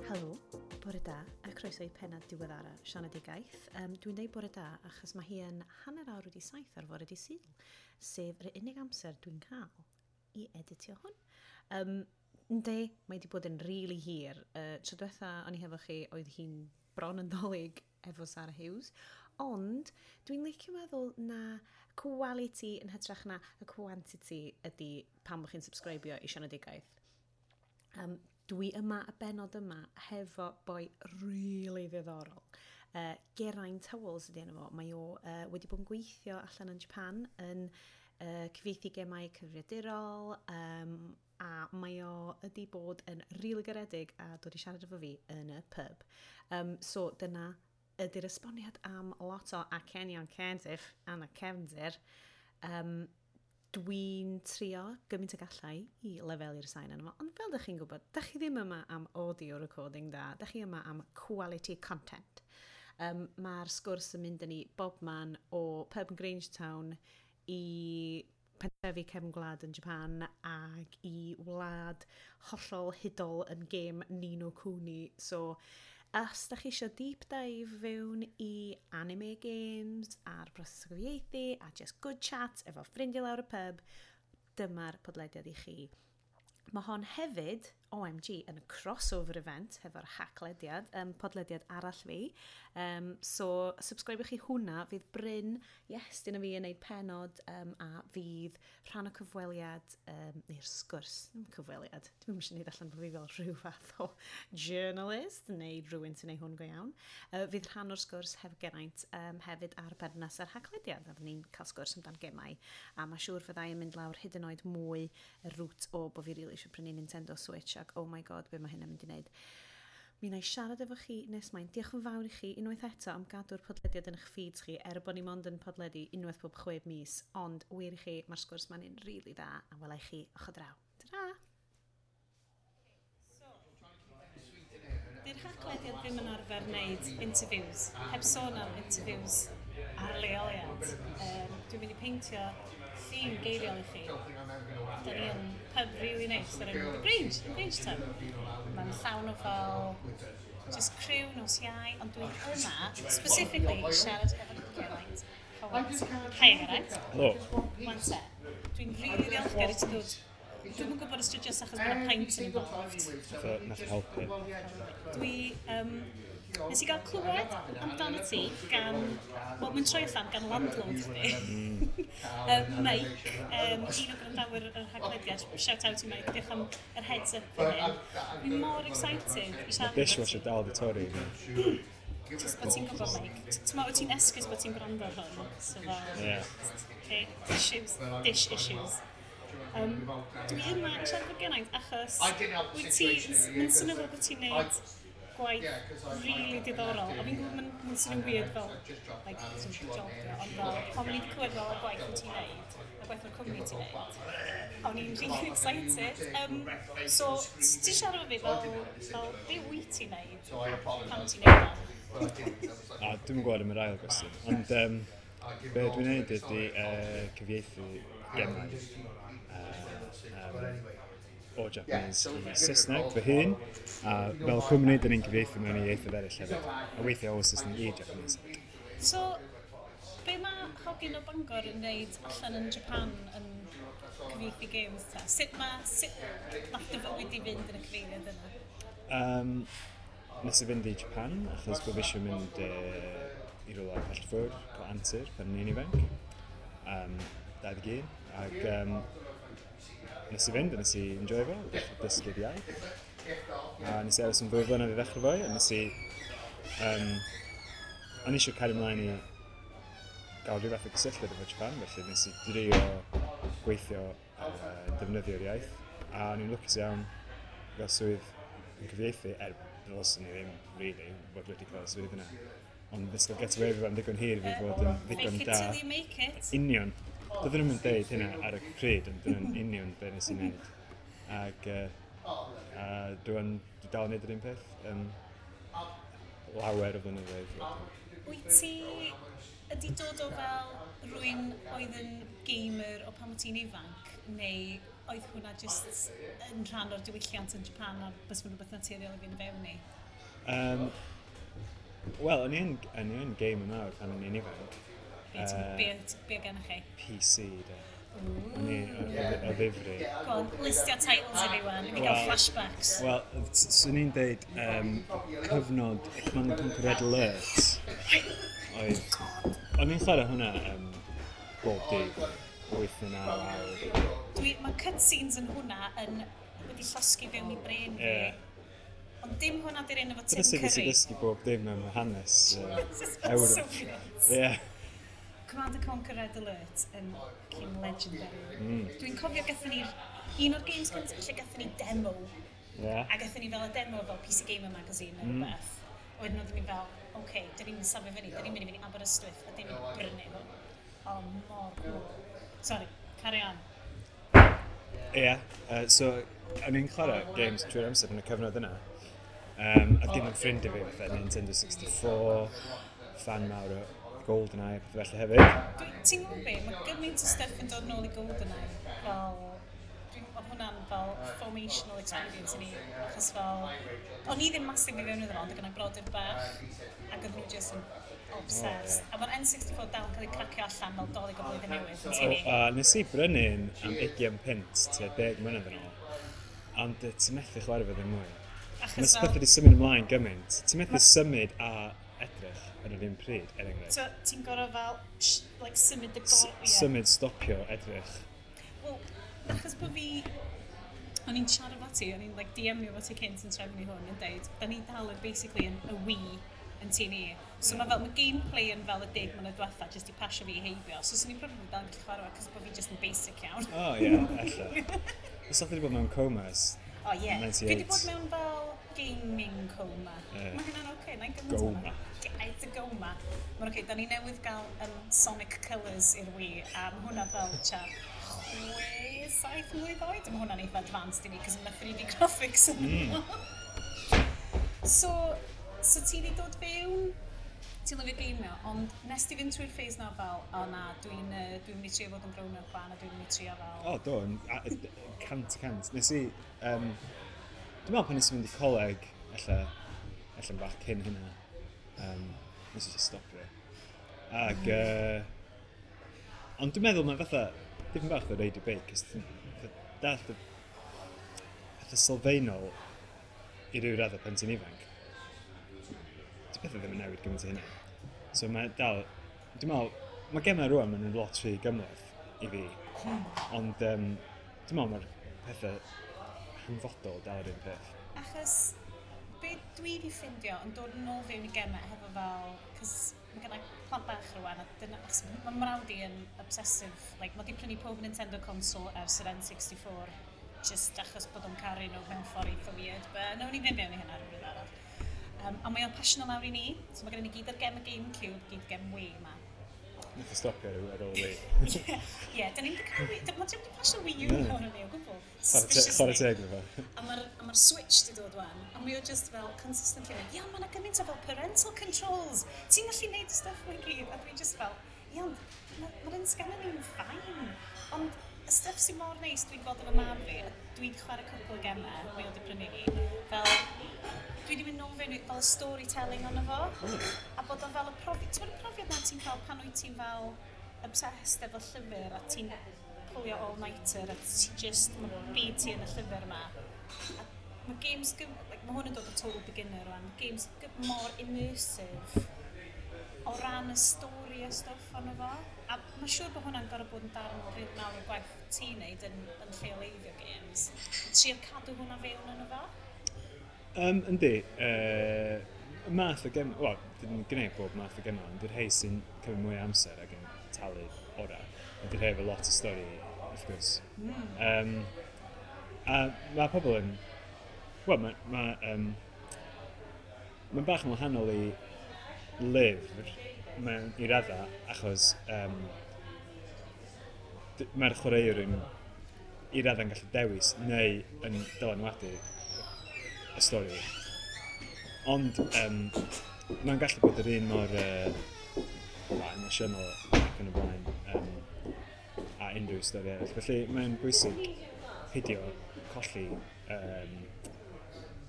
Helo, bore da, a croeso i pennod diweddara Sianedigaeth. Dwi'n deud bore da achos mae hi yn 7:30 ar fore dydd Sul, sef yr unig amser dwi'n cael i editio hwn. Yndi, mae wedi bod yn rili hir. Tro diwetha o'n i hefo chi, oedd hi'n bron yn Ddolig efo Sarah Hughes, ond dwi'n licio meddwl na quality yn hytrach na y quantity ydy pam bod chi'n subscribio i Sianedigaeth. Dwi yma y benod yma hefo boi really ddiddorol. Geraint Howells ydy enw fo. Mae o wedi bod yn gweithio allan yn Japan yn cyfieithu gemau cyfrifiadurol, a mae o ydi bod yn rili garedig a dod i siarad efo fi yn y pub. So dyna ydy'r esboniad am lot o acenion Cardiff yn y cefndir. Dwi'n trio gymaint y gallai i lefelu'r sain yna fo, ond fel dych chi'n gwybod, dych chi ddim yma am audio recording da, dych chi yma am quality content. Mae'r sgwrs yn mynd â ni bob man o pub yn Grangetown i pentrefi cefn gwlad yn Japan ag i wlad hollol hudol yn gêm Ni no Kuni. So, os da chi eisiau deep dive fewn i anime games a'r broses o gyfieithu a just good chat efo ffrindiau lawr y pub, dyma'r podlediad i chi. Mae hon hefyd, OMG, yn crossover event hefo'r haclediad, podlediad arall fi. So, subscribe chi hwnna, fydd Bryn, yes, dyn fi yn neud penod, a fydd rhan o cyfweliad, neu'r sgwrs, ddim cyfweliad, dwi'n eisiau neud allan bod fi fel rhyw fath o journalist, neu rhywun sy'n neud hwn go iawn. Fydd rhan o'r sgwrs hefo Geraint hefyd ar berthynas ar haclediad, a fydd ni'n cael sgwrs amdan gemau, a mae siŵr fyddai yn mynd lawr hyd yn oed mwy y route o bod fi rili eisiau prynu Nintendo Switch ac oh my God, be mae hynna'n mynd i wneud. Mi wna i siarad efo chi nes mlaen. Diolch yn fawr i chi unwaith eto am gadw'r podlediad yn eich feeds chi, er bod ni mond yn podledu unwaith pob 6 mis, ond wir i chi, mae'r sgwrs ma'n un rili dda, a wela i chi ochr draw. Ta-ra! Di'r Haclediad ddim yn arfer wneud interviews, heb sôn am interviews ar leoliad. Dwi'n mynd i peintio llun geiriol i chi. Da ni yn pub really nice ar enw The Grange, The Grange Tub. Mae'n llawn o fel just criw nos Iau, ond dwi'n yma specifically siarad efo Geraint Howells. Hi Geraint. Helo. Wan te, dwi'n rili ddiolchgar i ti ddod. Dwi'm yn gwybod os dwi jyst achos bod yna pint yn involved. Nath o helpu. Dwi, nes i gael clywed amdano ti gan, wel, mae'n troi allan gan landlord chdi. Mike, un o gwrandawyr yr Haclediad, shout out i Mike, diolch am yr heads up fan hyn. Dwi'n mor excited i siarad Mae dishwasher dal di torri. Just bod ti'n gwybod, Mike. Ti'n meddwl, ti'n esgus bod ti'n gwrando ar hwn. So fel, okay, issues, dish issues. Dwi yma i siarad efo Geraint achos wyt ti, mae'n swnio fel bod ti'n neud gwaith really diddorol. A fi'n gwybod mae'n swnio'n weird fel, like, sort of job, ond fel, pan o'n i wedi clywed fel y gwaith wyt ti'n neud, y gwaith o'r cwmni ti'n neud, o'n i'n really excited. So, ti'n siarad efo fi fel, be wyt ti'n neud, a pam ti'n neud o? A dwi'm yn gwybod am yr ail gwestiwn, ond be dwi'n neud ydy cyfieithu gemau o Japanese i Saesneg fy hun, a fel cwmni, dyn ni'n cyfieithu mewn i ieithoedd eraill hefyd, a weithiau o Saesneg i Japanese. So, be mae hogyn o Bangor yn neud allan yn Japan yn cyfieithu games ta? Sut nath dy fywyd i fynd yn y cyfeiriad yna? Nes i fynd i Japan, achos bod fi eisiau mynd i rywle pell ffwrdd, cael antur pan o'n i'n ifanc. 21, ac nes i fynd a nes i enjoy fo, dechrau dysgu'r iaith. A nes i aros yn 2 flynedd i ddechrau fo, a nes i... O'n i eisiau cario ymlaen i gael rhyw fath o gysylltiad efo Japan, felly nes i drio gweithio defnyddio'r iaith. A o'n i'n lwcus iawn i gael swydd yn cyfieithu, er ddylswn i ddim, really, fod wedi cael y swydd yna. Ond nes i gael get away with am ddigon hir i fi fod yn ddigon Fake it da. till you make it. Union. Doedden nhw'm yn deud hynna ar y pryd, ond dyna'n union be nes i wneud. Ac dwi'n dal yn neud yr un peth, lawer o flynyddoedd wedyn. Wyt ti ydi dod o fel rhywun oedd yn gamer o pan wyt ti'n ifanc, neu oedd hwnna just yn rhan o'r diwylliant yn Japan a bys fo'n rhywbeth naturiol i fynd fewn i? Wel, o'n i yn gamer mawr pan o'n i'n ifanc. Be, be gennych chi? PC, de. O'n i o ddifri. Go on, listio titles i fi wan, i fi gael flashbacks. Wel, swn i'n deud cyfnod Command and Conquer Red Alert. Oedd... O'n i'n chwarae hwnna bob dydd, 8 neu 9 awr. Mae cutscenes yn hwnna yn wedi llosgi fewn i brain fi. Ond dim hwnna di'r un efo Tim Dyna sut nes i Curry. ddysgu bob dim am hanes This is fel Ewrop. Soviets. Command and Conquer Red Alert yn fucking legendary. Dwi'n cofio gathon ni'r un o'r games gyntaf lle gathon ni demo. A gathon ni fel y demo fel PC Gamer Magazine neu rhywbeth. A wedyn oedden ni fel, oce, okay, dyn ni'n safio fyny, dyn ni'n mynd i fynd i Aberystwyth a dyn ni'n mynd i brynu hwn. O, mor cool. Sorry, carry on. Ie, so o'n i'n chwarae games trwy'r amser yn y cyfnod yna. A dim yn ffrind i fi fatha Nintendo 64, fan mawr o GoldenEye a pethau felly hefyd. Ti'n gwybod be, mae gymaint o stuff yn dod nôl i GoldenEye. Fel, oedd hwnna'n fel formational experience i ni. Achos fel, o'n i ddim massive i fewn iddo fo, ond oedd gynna i brodyr bach, ac oedden nhw just yn obsessed. A mae'r N64 dal yn cael ei cracio allan fel Dolig o Blwyddyn Newydd yn O, tŷ ni. a nes i brynu un am 20 punt tua 10 mlynedd yn ôl. Ond ti'n methu chwarae fo ddim mwy. Mae Achos pethau fel, wedi symud ymlaen gymaint. Ti'n methu symud a edrych ar yr un pryd, er enghraifft. So, ti'n gorfod fel, like, symud y gor... ie. Symud, stopio, edrych. Wel, achos bod fi... O'n i'n siarad efo ti, o'n i'n like, DM-io fo ti cynt yn trefnu hwn yn deud, da ni dal yn basically yn y Wii yn tŷ ni. So mae fel, mae gameplay yn fel y 10 mlynedd diwetha, jyst i pasio fi heibio. So swn i'n probably dal yn gallu chwarae fo, cos bod fi just yn basic iawn. O, ie, ella. Os o'ch wedi bod mewn coma ers O ie. Yeah. Dwi wedi 98. bod mewn fel gaming coma. Ie. Mae hynna'n oce, okay, na'n gymaint Goma. It's a goma. Mae'n oce, okay, da ni newydd gael Sonic Colours i'r Wii, a mae hwnna fel tua 6, 7 mlwydd oed. Mae hwnna'n eitha advanced i ni, cos mae 3D graphics yn. So ti wedi dod fewn, ti'n lyfio geimio, ond nes ti fynd trwy'r phase na fel, o na, dwi mynd i trio fod yn grown up fan, a dwi'n mynd i trio fel. O, do, yn 100%. Nes i, dwi'n meddwl pan nes i fynd i coleg, ella yn bach cyn hynna, nes i just stopio. Ag, ond dwi'n meddwl mae fatha, dipyn bach o reidio beic, cos ti'n dallt y pethau sylfaenol i ryw raddau pan ti'n ifanc. Di pethau ddim yn newid gymaint o hynna. So mae dal, dwi'n meddwl, mae gemau rwan, maen nhw'n lot rhy gymhleth i fi. Ond dwi'n meddwl mae'r pethau hanfodol dal yr un peth. Achos be dwi wedi ffindio yn dod yn ôl fewn i gemau hefo fel, cos mae gen i plant bach rwan, a dyna, achos mae mrawd i yn obsessive, like, mae di prynu pob Nintendo console ers yr N64, just achos bod o'n caru nhw mewn ffordd eitha weird, but nawn ni fynd mewn i hynna rhywbryd arall. A mae o'n pasio lawr i ni, so mae gen i ni gyd ar gem y GameCube, gyd gem Wii yma. Nath o stopio ar ôl Wii. Ie, yeah, da ni'n wedi cael Wii, mae wedi pasio Wii U lawr i ni o gwbl. Chwarae Suspiciously. teg iddo fo. A mae'r Switch di dod wan, a mae o just fel consistently mynd, ia, mae yna gymaint o fel parental controls, ti'n gallu neud y stuff mae gyd, a dwi just fel, ia, ond mae'r un sgan ni'n fine. Ond y stuff sy'n mor neis dwi'n gweld efo mab fi, a dwi'n chwarae cwpl o gemau, mae o wedi prynu ni, fel, dwi wedi mynd nôl fewn i fel y storytelling ono fo, a bod o fel y profiad, ti'n gwybod y profiad na ti'n cael pan wyt ti'n fel obsessed efo llyfr a ti'n pwlio all-nighter a ti just, mae byd ti yn y llyfr yma. A mae games, like, mae hwn yn dod o total beginner rwan, mae games mor immersive o ran y stori a stwff ono fo. A mae'n siŵr bod hwnna'n gorfod bod yn darn rili mawr o gwaith ti'n neud yn lleoleiddio games. Trio cadw hwnna fewn yno fo. Yndi, math o gem, wel, dyn gwneud bob math o gemau, ond dy'r rhai sy'n cymryd mwy o amser ac yn talu orau. Ydy'r rhai efo lot o stori, wrth gwrs. A mae pobl yn... Wel, mae... Ma, mae'n bach yn wahanol i lyfr mewn i raddau, achos mae'r chwaraewr yn i raddau'n gallu dewis neu yn dylanwadu y stori. Ond mae'n gallu bod yr un mor wel, emosiynol ac yn y blaen a unrhyw stori arall. Felly mae'n bwysig peidio colli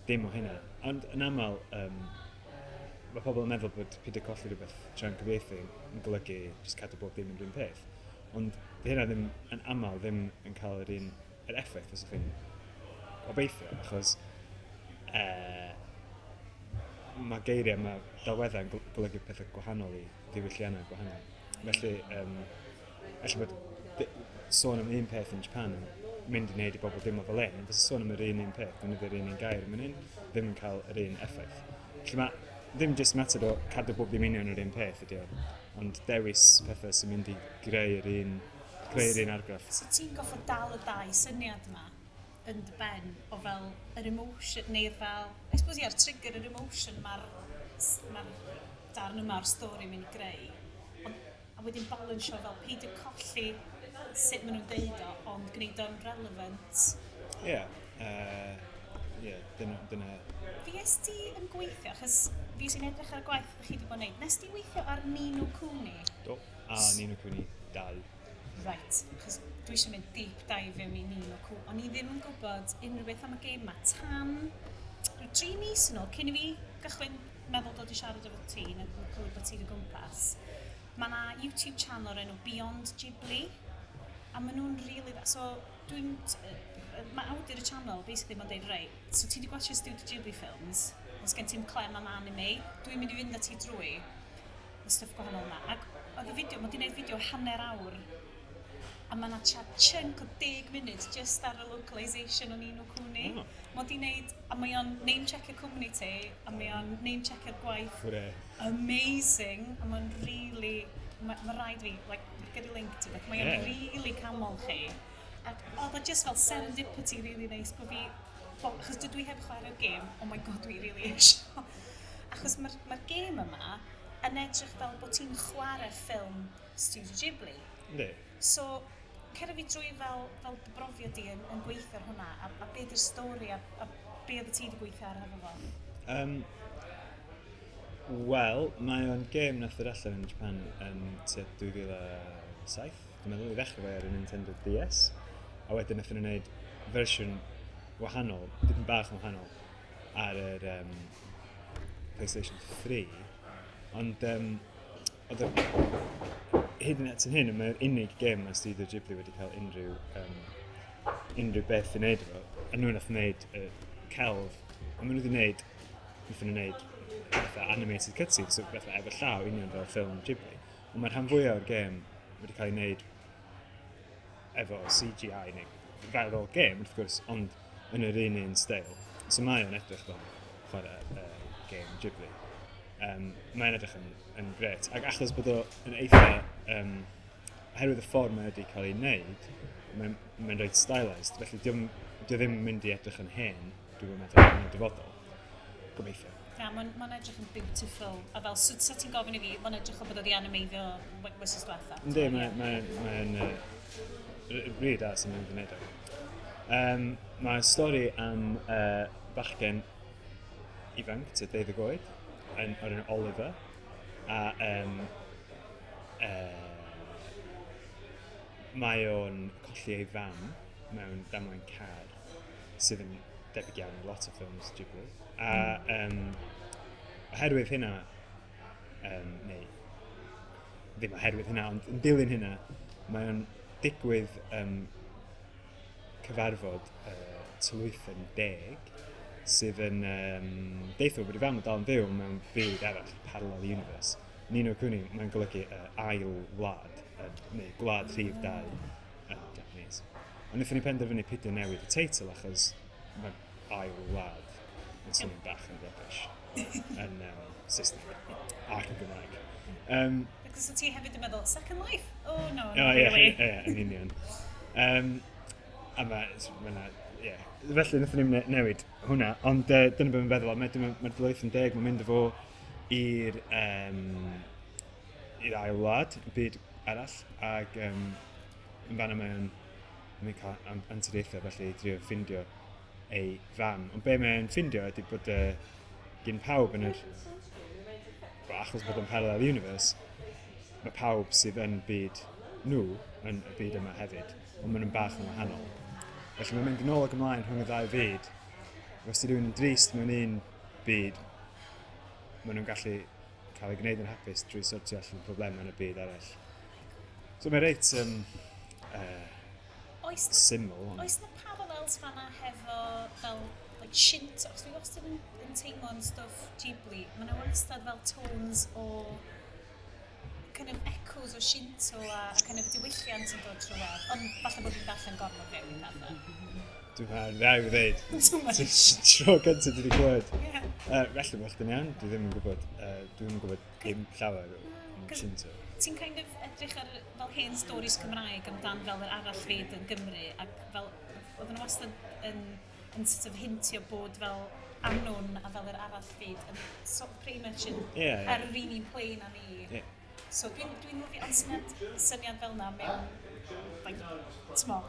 dim o hynna. Ond yn aml, mae pobl yn meddwl bod peidio colli rhywbeth tra'n cyfieithu yn golygu jyst cadw bob dim yn yr un peth. Ond di hynna ddim yn aml ddim yn cael yr un yr effaith os ydych chi'n obeithio, achos mae geiriau, mae delweddau yn golygu pethau gwahanol i ddiwylliannau gwahanol. Felly, ella bod sôn am un peth yn Japan yn mynd i wneud i bobl deimlo fel un, fysa sôn am yr un un peth, defnyddio'r un un gair yn hyn, ddim yn cael yr un effaith. Felly mae ddim jyst mater o cadw bob dim union yr un peth ydy o, ond dewis pethau sy'n mynd i greu'r un argraff. So ti'n goffod dal y dau syniad yma yn dy ben o fel yr emotion, neu'r fel, I suppose ia'r trigger yr emotion mae'r ma darn yma o'r stori mynd i greu. Ond, a wedyn balansio fel peidio colli sut maen nhw'n deud o, ond gwneud o'n relevant. Ie, yeah, dyna. Fues ti yn gweithio, achos fi sy'n edrych ar y gwaith chi wedi bod yn neud, nes ti weithio ar Ni no Kuni? Do, a Ni no Kuni 2. Right, achos dwi eisiau mynd deep dive fewn i Ni no Kuni. O'n i ddim yn gwybod unrhyw beth am y gêm yma tan rhyw 3 mis yn ôl, cyn i fi gychwyn meddwl dod i siarad efo ti, neu clywed bod ti'n o gwmpas. Mae yna YouTube channel o'r enw Beyond Ghibli, a maen nhw'n really dda. So, mae awdur y channel, basically, mae'n deud, reit, so ti wedi gwachio Studio Ghibli films, os gen ti'n clem am anime, dwi'n mynd i fynd â ti drwy y stwff gwahanol yma. Ac oedd y fideo, mae wedi gwneud fideo hanner awr, a mae yna chunk o 10 munud just ar y localisation o Ni no Kuni. Oh. Mae wedi gwneud, a mae o'n name-checkio cwmni ti, a mae o'n name-checkio'r gwaith Hwre. amazing, a mae'n really, mae rhaid fi, like, gyrru link ti beth, mae o'n really canmol chi. Ac oedd o just fel serendipity really nice bod fi, bo, achos dydw i heb chwarae'r gêm, oh my God, dwi really eisiau. Achos mae'r ma gêm yma yn edrych fel bod ti'n chwarae ffilm Studio Ghibli. Yndi. So, cer fi drwy fel dy brofiad di yn gweithio ar hwnna, a be di'r stori, a be oedd ti wedi gweithio ar efo fo? Wel, mae o'n gêm nath ddod allan yn Japan yn tua 2007, dwi'n meddwl, i ddechrau fe ar y Nintendo DS. A wedyn nath nhw wneud fersiwn wahanol, dipyn bach yn wahanol, ar yr PlayStation 3. Ond oedd hyd yn at yn hyn, mae'r unig gêm mae Studio Ghibli wedi cael unrhyw beth i wneud efo. A nhw nath wneud celf, a maen nhw wedi wneud, nath nhw wneud fatha animated cutscenes, so fatha efo llaw union fel ffilm Ghibli. Ond mae'r rhan fwyaf o'r gêm wedi cael ei wneud efo CGI neu fel o'r gêm, wrth gwrs, ond yn yr un un steil. So mae o'n edrych fel chwarae gêm Ghibli. Mae'n edrych yn gret. Ac achos bod o yn eitha, oherwydd y ffordd mae wedi cael ei wneud, mae'n reit stylised, felly dio ddim yn mynd i edrych yn hen, dwi'n meddwl, yn y dyfodol. Gobeithio. Na, mae'n ma edrych yn beautiful. A fel, so ti'n gofyn i fi, mae'n edrych o bod wedi animeiddio wythnos diwetha. Yndi, mae'n mae, mae rili da sy'n mynd i wneud o. Mae stori am bachgen ifanc, tua 12 oed, o'r enw Oliver, a mae o'n colli ei fam mewn damwain car, sydd yn debyg iawn i lot o ffilms Ghibli. A oherwydd hynna, neu ddim oherwydd hynna, ond yn dilyn hynna, mae o'n digwydd cyfarfod tylwythen deg sydd yn deithio bod ei fam yn dal yn fyw mewn byd arall, parallel universe. Ni no Kuni, mae'n golygu ail wlad, neu gwlad rhif 2 yn Japanese. Ond wnaethon ni penderfynu peidio newid y teitl achos mae ail wlad yn swnio'n bach yn rubbish yn Saesneg ac yn Gymraeg. Because ti hefyd yn meddwl, Second Life? Oh, no, O, not ie, really. ie, yn union. A mae, ie. Felly, wnaethon ni'n newid hwnna, ond dyna beth mae'n feddwl, mae'r ma Tylwyth yn Deg, mae'n mynd â fo i'r ail wlad, y byd arall, ac yn fanna mae'n cael anturiaethau, felly i drio ffindio ei fam. Ond be mae'n ffindio ydy bod gyn pawb yn yr... Wel, achos bod o'n parallel universe, mae pawb sydd yn byd nhw yn y byd yma hefyd, ond maen nhw'n bach yn wahanol. Felly mae'n mynd yn ôl ac ymlaen rhwng y ddau fyd. Os di rhywun yn drist mewn un byd, maen nhw'n gallu cael ei gwneud yn hapus drwy sortio allan problemau yn y byd arall. So mae'n reit Oes, syml. Ond oes na parallels fanna hefo fel like, Shinto? Achos dwi wastad yn teimlo'n stwff Ghibli. Mae yna wastad fel tones o kind of echoes o Shinto a kind of diwylliant yn dod trwy'r. Ond falle bod fi'n darllen gormod fewn i pethau. Dwi'n meddwl, rhaid i ddweud. Too much. Tro gyntaf dwi wedi clywed. Yeah. Felly bod chdi'n iawn, dwi ddim yn gwybod, dwi ddim yn gwybod dim llawer o am Cos- Shinto. Ti'n kind of edrych ar fel hen stories Cymraeg amdan fel yr arall fyd yn Gymru ac fel oedden nhw wastad yn sort of hintio bod fel Annwn a fel yr arall fyd yn sort of pretty much yn Ie. ar yr un plane â ni. So dwi'n lyfio ond syniad fel na mewn like, t'mo,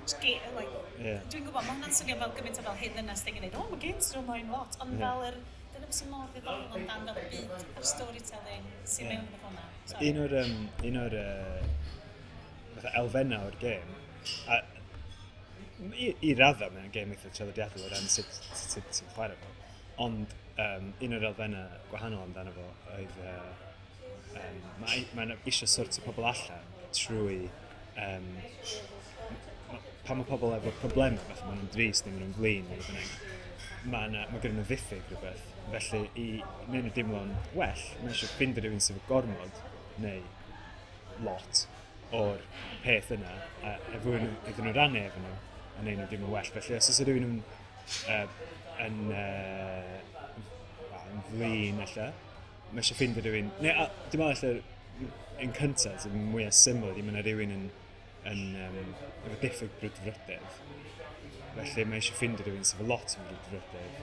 like, dwi'n gwybod, mae hwnna'n swnio fel gymaint o fel hen ddynas thing yn dweud, "Oh, mae games yn ymlaen lot," ond fel yr, dyna beth sy'n mor ddiddorol amdan fel y byd a'r storytelling sy'n mewn efo hwnna. Sorry. Un o'r fatha elfennau o'r gêm, a i raddau mae'n gêm eitha traddodiadol o ran sut ti'n chwarae fo, ond un o'r elfennau gwahanol amdano fo oedd mae eisiau sortio pobl allan trwy pan mae pobl efo problemau, fatha maen nhw'n drist neu maen nhw'n flin neu beth bynnag, mae gen nhw ddiffyg rhywbeth. Felly, i wneud nhw deimlo'n well, mae eisiau ffindio rhywun sydd efo gormod neu lot o'r peth yna, a efo iddyn nhw rannu efo nhw, a wneud nhw deimlo'n well. Felly, os oes rhywun yn, wel, yn flin, ella, mae eisiau ffindio rhywun, neu a, dwi'n meddwl ella, yn cyntaf, sy'n mwyaf syml, ydy mae yna rhywun yn efo diffyg brwdfrydedd. Felly mae eisiau ffindio rhywun sydd efo lot o brwdfrydedd,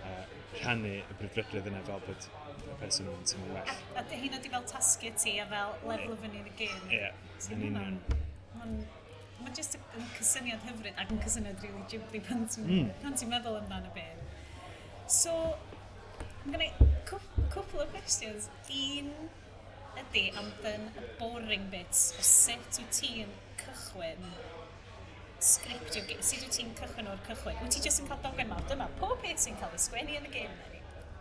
a rhannu y brwdfrydedd yna fel bod y person yn teimlo'n well. A dy hynna di fel tasgu ti a fel lefel fyny yn y gêm. Ie, So yn union. Mae'n just yn cysyniad hyfryd ac yn cysyniad really Ghibli pan ti'n pan ti'n meddwl amdano beth. So, mae gen i cwpl o questions. Un ydy amdan y boring bits o sut wyt ti'n cychwyn sgriptio, sut wyt ti'n cychwyn o'r cychwyn? Wyt ti jyst yn cael dogfen mawr? Dyma pob peth sy'n cael ei sgwennu yn y gêm.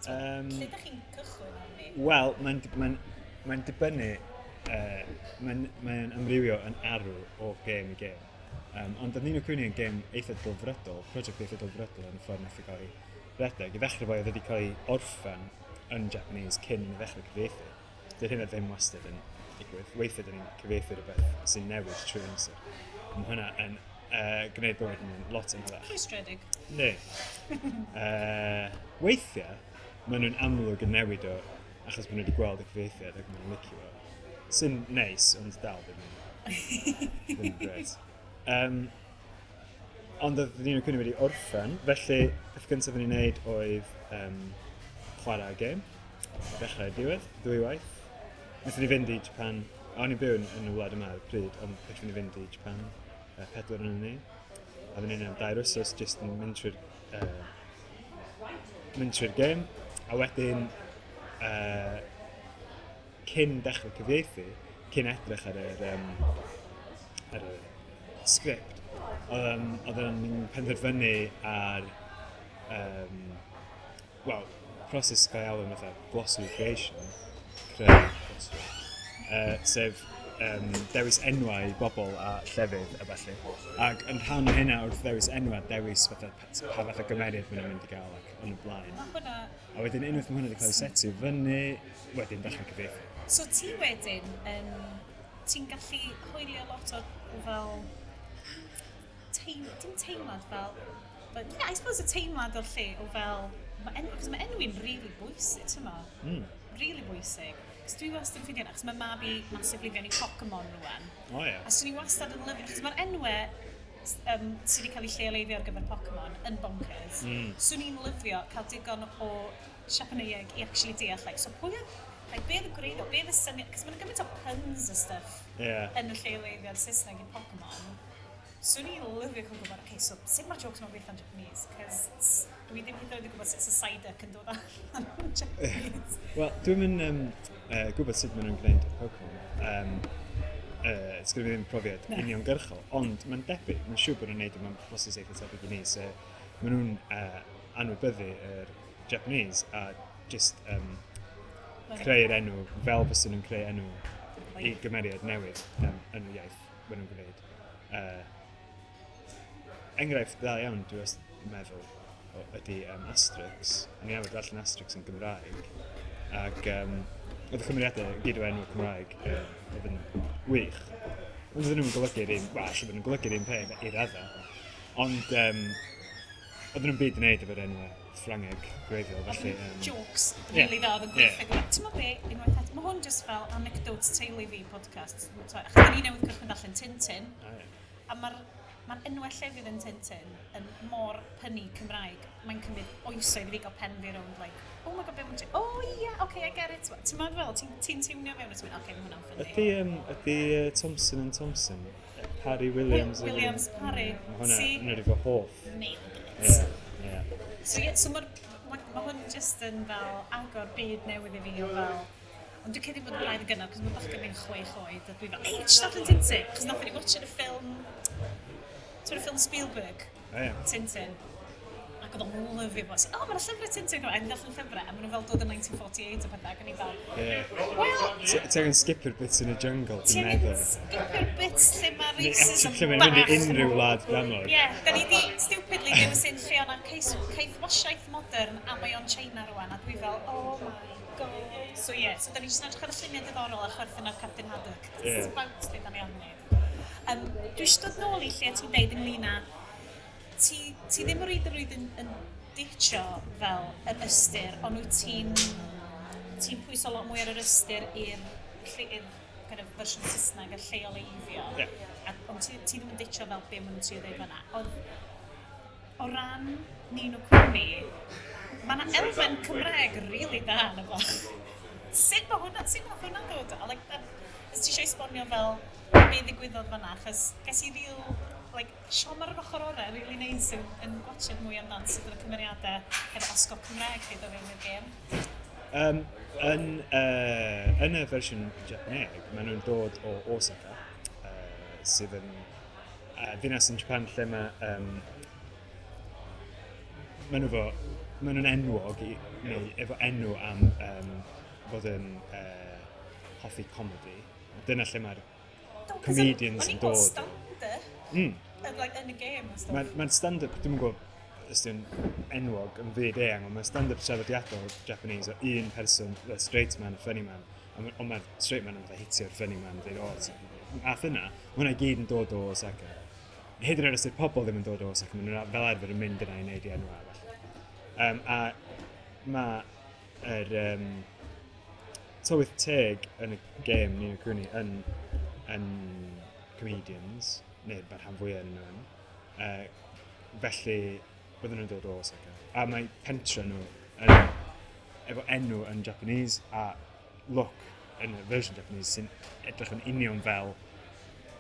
Lle ydych chi'n cychwyn arni? Wel, mae'n dibynnu, mae'n amrywio yn arw o gêm i gêm. Ond oedd Ni no Kuni yn gêm eitha delfrydol, prosiect eitha delfrydol yn y ffordd nath i gael ei redeg. I ddechrau fo, oedd wedi cael ei orffen yn Japanese cyn i ni ddechrau cyfieithu. Dy'r hynna ddim wastad yn digwydd. Weithiau dyn ni'n cyfieithu rhywbeth sy'n newid trwy amser. Mae hwnna yn gwneud bywyd yn lot yn hyfach. Rhwystredig. Ne. Weithiau, maen nhw'n amlwg yn newid o achos maen nhw wedi gweld y cyfieithiad ac maen nhw'n licio fo. Sy'n neis, ond dal ddim yn gret. Ond oedd Ni no Kuni wedi orffen, felly peth gyntaf o'n i'n neud oedd chwarae gêm, dechrau i'r diwedd, ddwy waith. Wnaethon ni fynd i Japan, o'n i'n byw yn y wlad yma ar y pryd, ond wnaethon ni fynd i Japan, pedwar yn ni. A oedden ni'n am 2 wsos jyst yn mynd trwy'r gêm. A wedyn, cyn dechrau cyfieithu, cyn edrych ar y sgript, oedden ni'n penderfynu ar, wel, proses gael ei alw yn fatha glossary creation, creu glossary, sef dewis enwau i bobl a llefydd a ballu. Ac yn rhan o hynna wrth ddewis enwau, dewis fatha, pa fath o gymeriad maen nhw'n mynd i gael ac yn y blaen. Mae hwnna. A wedyn unwaith mae hwnna wedi cael ei setio fyny, wedyn dechrau cyfieithu. So ti wedyn, ti'n gallu hwylio lot o fel dim teimlad fel, but yeah, I suppose y teimlad o'r lle o fel, cos mae enwi'n really bwysig, ti'n ma? Really bwysig. Cos dwi wastad yn ffeindio, achos mae mab i massively fewn i Pokemon rwan. O ie. A swn i wastad yn lyfio, achos mae'r enwau sydd wedi cael eu lleoleiddio ar gyfer Pokemon yn bonkers. Swn i'n lyfio cael digon o Siapaneieg i actually deall, like, so pwy oedd, like, be oedd y gwreiddiol, be oedd y syniad, cos mae'n gymaint o puns a stuff yn y lleoleiddiad Saesneg i Pokemon. Swn i'n lyfio cael gwybod, okay, so sut mae'r jokes ma'n gweithio'n Japanese? Cos dwi ddim hyd yn oed yn gwybod sut y Psyduck yn dod allan yn Japanese. Wel, dwi'n mynd gwybod sut maen nhw'n gwneud Pokemon. Sgynna fi ddim profiad uniongyrchol, ond mae'n debyg, mae'n siŵr bod nhw'n neud o mewn proses eitha tebyg i ni, so maen nhw'n anwybyddu yr Japanese a just creu'r enw fel fysa nhw'n creu enw i gymeriad newydd yn y iaith maen nhw'n gwneud. Enghraifft dda iawn, dwi wastad yn meddwl, ydy Asterix. O'n i arfer darllen Asterix yn Gymraeg, ac oedd y cymeriadau gyd o enw Cymraeg oedd yn wych. Ond oedden nhw'n golygu'r un, wel, ella bod nhw'n golygu'r un peth i raddau, ond oedden nhw'm byd i wneud efo'r enwau Ffrangeg gwreiddiol, felly. Jokes really dda oedd yn gweithio. Ti'n meddwl be, unwaith eto, mae hwn just fel anecdotes teulu fi podcast. Achos da ni newydd cychwyn darllen Tintin, a mae'r ma enwau llefydd yn Tintin yn mor punny Cymraeg. Mae'n cymryd oesoedd i fi gael pen fi rownd, like, "Oh my God, be mae'n..." "Oh yeah, okay, I get it." Ti'n meddwl fel, ti'n tiwnio fewn a ti'n mynd, "Okay, mae hwnna'n funny." Ydy Thompson and Thompson, Parry Williams? Williams Parry. Mae hwnna, hwnna di fy hoff. Nailed it. Yeah. So, yeah, so mae'r ma hwn just yn fel agor byd newydd i fi o fel. Ond dwi'n credu bod yn braidd yn gynnar, cos mae bachgen fi'n 6 oed, a dwi fel, "Ei, just darllen Tintin!" Cos nathon ni watch y ffilm, ti'n y ffilm Spielberg, O, ie. Tintin. Ac oedd o'n lyfio fo. "O, mae'n llyfrau Tintin." A ni'n darllen llyfrau, a maen nhw fel dod yn 1948 a pethau, ac o'n i fel, "Well," Ti angen skipio'r bits yn y jungle, Ti dwi'n angen meddwl. skipio'r bits lle mae racism Lle mae'n mynd i bach. unrhyw wlad dramor. Ie, yeah, da ni di stupidly dewis un lle o'na caethwasiaeth modern a mae o'n China rwan, a dwi fel, "Oh my God." So ie, yeah, so da ni jyst yn edrych ar y lluniau diddorol a chwerthin ar Captain Haddock. That's about lle da ni arni. Dwi eisiau dod nôl i lle ti'n deud ynglyn â ti ddim o reidrwydd yn ditio fel yr ystyr, ond wyt ti'n pwyso lot mwy ar yr ystyr i'r kind of fersiwn Saesneg a lleoleiddio. A, ond ti ddim yn ditio fel be maen nhw'n trio dweud fan'na. Oedd, o ran Ni no Kuni, mae yna elfen Cymraeg really da yna fo. Sut mae hwnna'n dod? A, like, that, os ti eisiau esbonio fel be ddigwyddodd fan'na, achos ges i real, like, siom ar yr ochr orau, really nice yn gwatchad mwy amdan sut oedd y cymeriadau efo osgo Cymraeg chi dod fewn i'r gêm. Yn y fersiwn Japaneg, maen nhw'n dod o Osaka, sydd yn ddinas yn Japan lle maen nhw'n enwog i, neu efo enw am fod yn hoffi comedy. Dyna lle mae'r Do, 'cause comedians o'n yn i'n gweld dod. stand-up like, yn y gêm a stuff. Mae'r ma stand-up, dwi'n gwybod os di'n enwog yn fyd eang, ond mae'r stand-up traddodiadol Japanese o un person, the straight man, a funny man, ond mae'r straight man yn fatha hitio'r funny man, dweud, "O, ath yna," mae hwnna i gyd yn dod o Osaka. Hyd yn oed os ydy'r pobl ddim yn dod o Osaka, maen nhw fel arfer yn mynd yna i wneud i enw arall. A mae'r tylwyth teg yn y gêm Ni no Kuni yn comedians, neu mae'r rhan fwyaf yn nhw yn. Felly, bydden nhw'n dod o Osaka. A mae pentre nhw yn, efo enw yn Japanese a look yn y version Japanese sy'n edrych yn union fel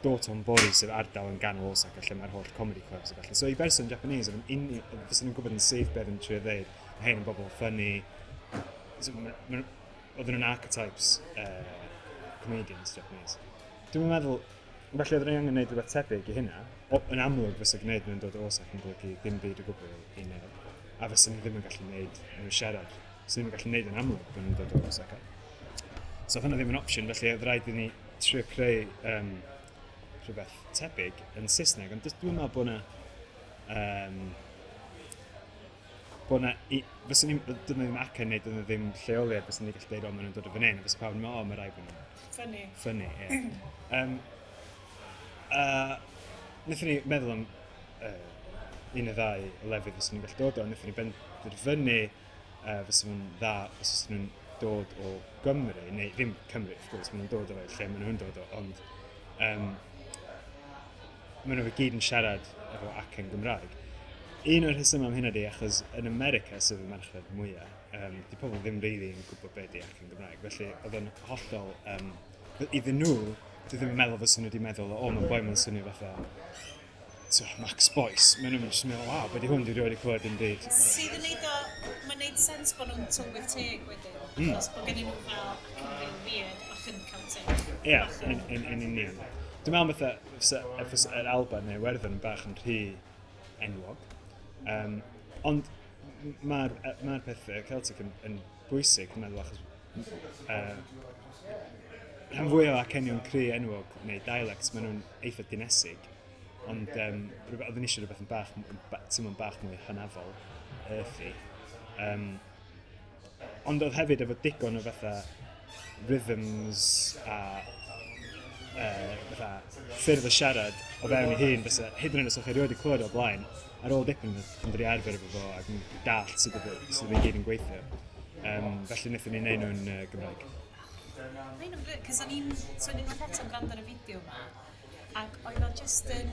Dotonbori, sef ardal yn ganol Osaka lle mae'r holl comedy clubs a felly. So i berson Japanese, oedd yn fysen nhw'n gwybod yn syth beth yn trio ddeud, "Mae hein yn bobl funny." So, oedden nhw'n archetypes comedians Japanese. Dwi'n meddwl, felly oedden ni angen gwneud rhywbeth tebyg i hynna. O, yn amlwg fysa gwneud nhw'n dod o Osaka yn golygu dim byd o gwbl i neb. A fysa ni ddim yn gallu gwneud nhw siarad. Fysa ni ddim yn gallu gwneud yn amlwg bod nhw'n dod o Osaka. So oedd hynna ddim yn opsiwn, felly oedd rhaid i ni trio creu rhywbeth tebyg yn Saesneg, ond dwi'n meddwl bod na, fysa ni, dyn nhw ddim acen neu dyn nhw ddim lleoliad, fysa ni gallu dweud, "O, maen nhw'n dod o fan hyn," a fysa pawb yn meddwl, "O, mae rhaid bod nhw'n Funny. funny," ie. Wnaethon ni meddwl am un neu ddau o lefydd fysa ni'n gallu dod o, wnaethon ni benderfynu fysa nhw'n dda os fysa nhw'n dod o Gymru, neu ddim Cymru, wrth gwrs, maen nhw'n dod o lle maen nhw'n dod o, ond maen nhw i gyd yn siarad efo acen Gymraeg. Un o'r rhesymau am hynna di, achos yn America, sef y marchnad mwyaf, di pobl ddim really yn gwybod beth di acen Gymraeg. Felly oedd o'n hollol, iddyn nhw, dwi ddim yn meddwl fysa nhw wedi meddwl, "O, mae'n boi ma'n swnio fatha so, Max Boyce, maen nhw'n just meddwl, "Waw, be di hwn, dwi rioed wedi clywed dim byd." Sydd yn neud o, mae'n neud sens bod nhw'n tylwyth teg wedyn. Achos bod gen nhw fel acen real weird, bach yn Celtic. Ie, yeah, yn union. Dwi'n meddwl fatha, fysa yr Alban neu Iwerddon yn bach yn rhy enwog. Ond mae'r ma peth Celtic yn bwysig, dwi'n meddwl, achos rhan fwy o acenion cry enwog neu dialects, maen nhw'n eitha dinesig. Ond oedden ni eisiau rhywbeth yn bach, teimlo'n bach mwy hynafol, earthy. Ond oedd hefyd efo digon o fatha rhythms a fatha ffyrdd o siarad o fewn ei hun, fysa, hyd yn oed os o'ch chi erioed wedi clywed o blaen, ar ôl dipyn yn dod i arfer efo fo ac yn dallt sut oedd i gyd yn gweithio. Felly wnaethon ni wneud nhw'n Gymraeg. Mae'n yn brilliant, cos o'n i'n, so o'n i'n unwaith eto'n gwrando ar y fideo yma, ac oedd o just yn,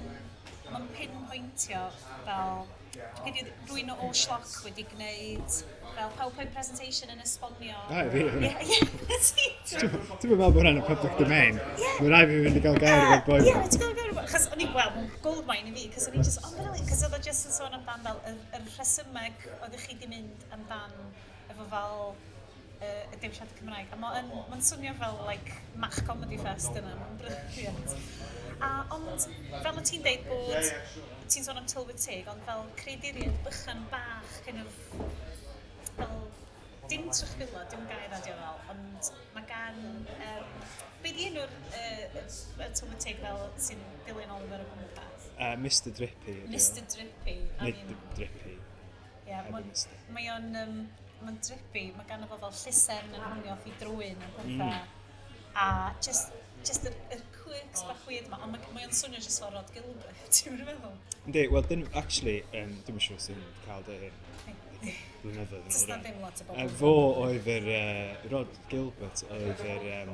mae'n pinpointio fel, dwi'n credu oedd rhywun o Schlock wedi gwneud fel PowerPoint presentation yn esbonio. Ah, fi, Ie, ie, ti. Dwi'n meddwl bod hwnna'n y public domain. Mae'n rhaid fi fynd i gael gair efo'r boi. Ie, ti'n gael gair efo, chos o'n i'n gweld, mae'n goldmine i fi, cos o'n i'n just, oh, brilliant, cos oedd o just yn sôn amdan fel yr rhesymeg oeddech chi di mynd amdan efo fel y dewisiadau Cymraeg. A mae'n ma swnio fel, like, Mach Comedy Fest yna, mae'n brilliant. A, ond, fel o ti'n deud bod, ti'n sôn am tylwyth teg, ond fel creaduriaid bychan bach, kind of, fel, dim trychfilod, dim gair radio fel, ond mae gan, be di enw'r y tylwyth teg fel sy'n dilyn Oliver o gwmpas? Mr Drippy ydi o. Mr Drippy. I Nid mean, Drippy. yeah, Heb y Mr. Mae o'n, mae'n drippy, mae ganddo fo fel llusern yn hwngio off i drwyn a pethau. A just yr quirks bach weird ma, ond mae o'n swnio just fel Rhod Gilbert, ti'n meddwl? Yndi, wel, dyn, actually, dwi'n siŵr sy'n cael dy hyn blynyddoedd yn Does ôl na rwan. ddim lot o bobl. Fo oedd yr, Rhod Gilbert oedd yr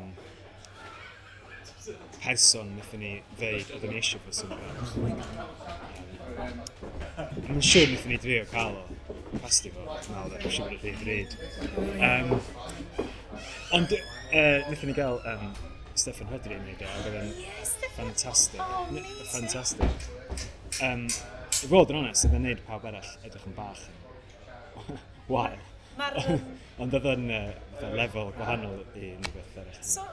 person wnaethon ni ddeud oedden ni eisiau fo swnio fel. Mae'n siŵr wnaethon ni drio cael o. Pasti fo, dwi'n meddwl, dwi'n siŵr bod o'n rhy ddrud. Ond wnaethon ni gael Steffan Rhodri yn neud o, ac oedd o'n Steffan. ffantastig. Oh, amazing. Ffantastig. I fod yn onest, oedd o'n neud pawb arall edrych yn bach yn wael. Mae'r... Ond oedd o'n fatha lefel gwahanol i unrhyw beth arall. So,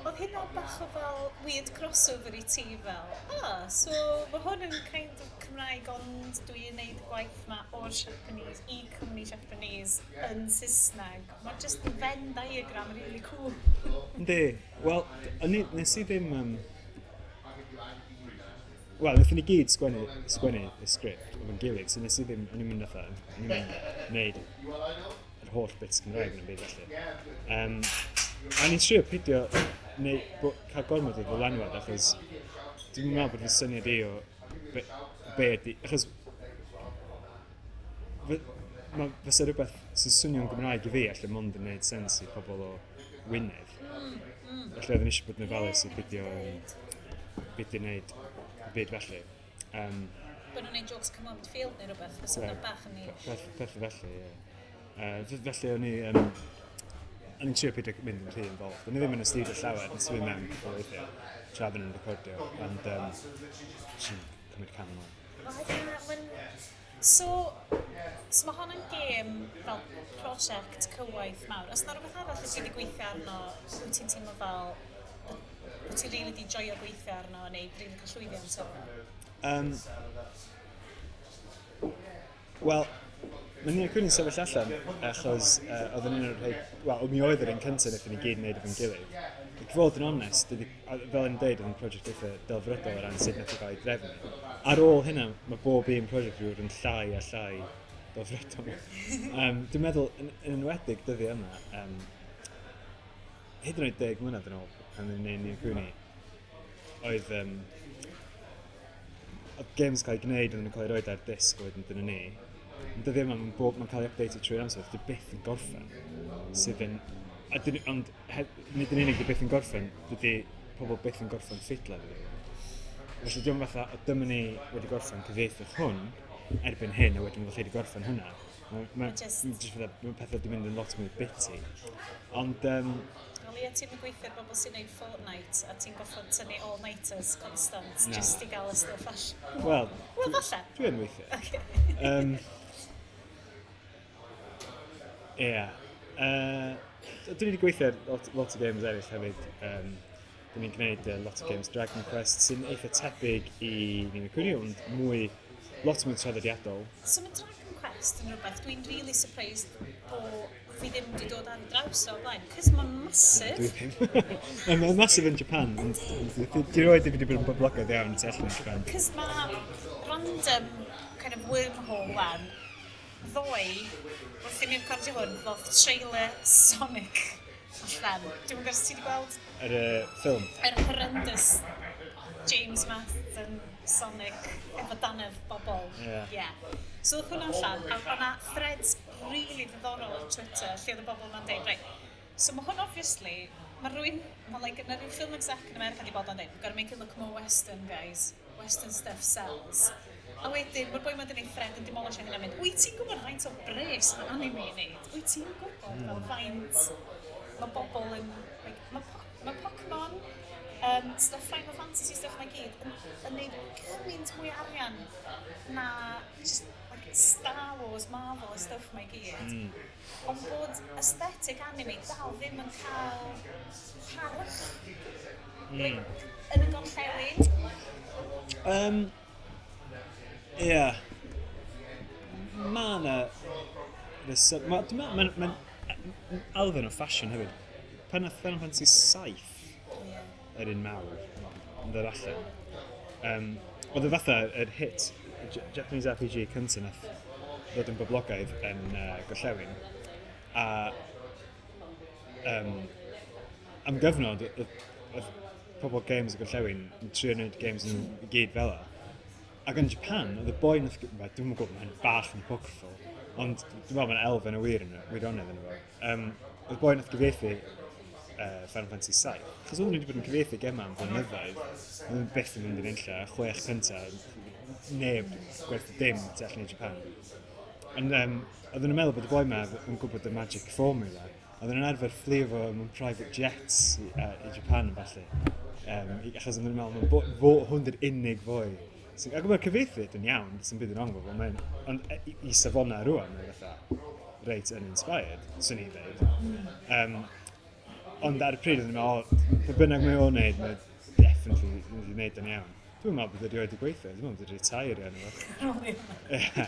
oedd hynna bach o fel weird crossover i ti fel, ah, so mae hwn yn kind of Cymraeg ond dwi'n neud y gwaith ma o'r Japanese i cwmni Japanese yn Saesneg. Mae'n just yn Venn diagram really cool. Yndi, wel, nes i ddim... Wel, wnaethon ni gyd sgwennu y sgript efo'n gilydd, so nes i ddim, o'n i'n mynd fatha, o'n i'n mynd wneud yr holl bits Cymraeg yn y byd felly. A o'n i'n trio peidio neu, cael gormod o ddylanwad, achos dwi'n meddwl bod fy syniad i o be ydi, achos fysa rhywbeth sy'n swnio'n Gymraeg i fi allan mond yn gwneud sens i pobl o Wynedd. Felly oedden ni eisiau bod yn ofalus i beidio wneud y byd felly. Bod nhw'n neud jokes come on field neu rhywbeth, fysa hwnna bach yn niche. Peth felly, ie. Felly o'n i'n trio peidio mynd yn rhy involved. O'n i ddim yn astudio llawer, nes i fynd mewn cwpl o weithiau tra oedden nhw'n recordio, ond jyst yn cymryd cam yn ôl. Wel, ie, so mae hon yn gêm fel prosiect cywaith mawr. Oes 'na rhywbeth arall wyt ti wedi gweithio arno, wyt ti'n teimlo fel bod ti'n rili wedi joio gweithio arno neu rili cael llwyddiant o? Wel, mae Ni no Kuni'n sefyll allan achos oedd yn un o'r rhai... Wel, mi oedd yr un cyntaf wnaethon ni gyd wneud efo'n gilydd. Ac i fod yn onest, fel yn dweud, oedd yn prosiect eitha delfrydol o ran sut nath o gael ei drefnu. Ar ôl hynna, mae bob un prosiect wedi bod yn llai a llai delfrydol. Dwi'n meddwl, yn enwedig dyddiau yma, hyd yn oed 10 mlynedd yn ôl, pan o'n i'n neud Ni no Kuni, oedd games cael ei gwneud, oedden nhw'n cael ei roed ar disg a wedyn dyna ni. Ond dyddiau yma, mae'n cael ei update trwy'r amser, dydy byth yn gorffen. Sydd yn... A dyn, ond nid yn unig dy byth yn gorffen, dydy pobl byth yn gorffen ffidla efo fi. Felly diolch fatha, o dyma ni wedi gorffen cyfieithu hwn, erbyn hyn, a wedyn felly wedi gorffen hwnna. Mae just fatha, mae pethau wedi mynd yn lot mwy bitty. Ond Wel ie, ti'n gweithio ar bobl sy'n neud Fortnite a ti'n goffod tynnu all-nighters constant Na. just i gael y stwff allan. Wel, Wel, falle. Dwi yn weithio. Okay. Ie. Dwi wedi gweithio ar lot o games eraill hefyd. Dwi ni'n gwneud lot o games Dragon Quest sy'n eitha tebyg i Ni no Kuni, ond mwy, lot mwy traddodiadol. So mae Dragon Quest yn rhywbeth dwi'n really surprised bo fi ddim wedi dod ar draws o blaen, cos mae'n massive. Dwi ddim. Mae'n massive yn Japan, ond di roed wedi bod yn boblogaidd iawn tu allan i Japan. Cos mae random kind of wormhole wan, ddoe, wrth i mi recordio hwn, ddoth trailer Sonic allan. Dwi'n gwybod os ti wedi gweld Yr ffilm. yr horrendous James Marsden Sonic efo danedd bobl. Ie. Yeah. So oedd hwnna allan, a o'na threads really ddiddorol ar Twitter lle oedd y bobl ma'n deud, right, so mae hwn obviously, mae rhywun, mae like, yna rhyw film exec yn America di bod o'n deud, we've got to make it look more Western, guys. Western stuff sells. A wedyn, mae'r boi ma'n gwneud thread yn demolish hynna'n mynd, wyt ti'n gwybod faint o bres mae anime yn neud? Wyt ti'n gwybod fel faint mae bobl yn... Like, mae Pokemon, stuff Final Fantasy stuff mae gyd, yn neud gymaint mwy o arian na just like, Star Wars, Marvel a stuff mae gyd. Ond bod aesthetic anime dal ddim yn cael parch like, yn y gorllewin. Ie. Ma' 'na dwi'n meddwl, mae'n elfen o ffasiwn hefyd. Pan nath Final Fantasy 7 yr un mawr yn dod allan, oedd y fatha yr hit Japanese RPG cyntaf nath ddod yn boblogaidd yn gorllewin. A am gyfnod, oedd pobl games y gorllewin yn trio gwneud games yn i gyd fel 'a. Ac yn Japan, oedd y boi nath, wel, dwi'm yn gwybod, mae'n bach yn apocryphal, ond dwi'n meddwl mae'n elfen o wir yn wirionedd yn efo. Oedd y boi nath gyfieithu Final Fantasy 7, achos oedden nhw wedi bod yn cyfieithu gemau am flynyddoedd, oedden nhw byth yn mynd yn unlla, 6 cyntaf, neb gwerthu dim tu allan i Japan. Ond oedden nhw'n meddwl bod y boi ma yn gwybod y magic formula. Oedden nhw'n arfer fflio fo mewn private jets i Japan falle. Achos oedden nhw'n meddwl, hwn di'r unig foi. So, ac mae'r cyfieithu yn iawn, sy'n byd yn wrong fo, ond i safonau rwan, mae'n fatha reit uninspired, swn i'n dweud. Ond ar y pryd, oedden nhw'n meddwl, o, be bynnag mae o'n neud, mae definitely mynd i wneud yn iawn. Dwi'n meddwl bod wedi wedi gweithio, dwi'n meddwl bod wedi retire iawn. Ie.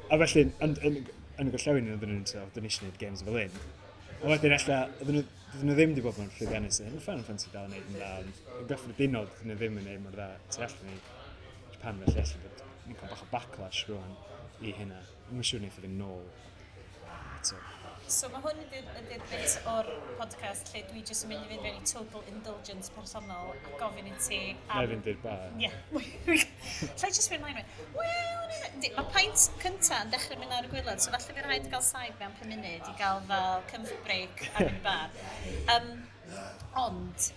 A felly, yn y gorllewin, oedden nhw'n dweud, oedden ni eisiau gwneud games fel un. A wedyn ella, oedden nhw ddim wedi bod yn llwyddiannus yn hyn. Final Fantasy dal yn neud yn dda, ond yn gyffredinol, oedden nhw ddim yn neud mor dda tu allan i Japan, felly ella bod ni'n cael bach o backlash rwan i hynna. Dwi'n siŵr wneith o fynd nôl eto. So mae hwn ydy'r bit o'r podcast lle dwi jyst yn mynd i fynd fewn i total indulgence personol a gofyn i ti Na i fynd i'r bar. Ie. Lle jyst fynd mlaen? Wel, yndi, mae peint cynta yn dechrau mynd ar y gwaelod, so falle fydd rhaid gael saib mewn 5 munud i gael fel comfort break a mynd i bar. Ond,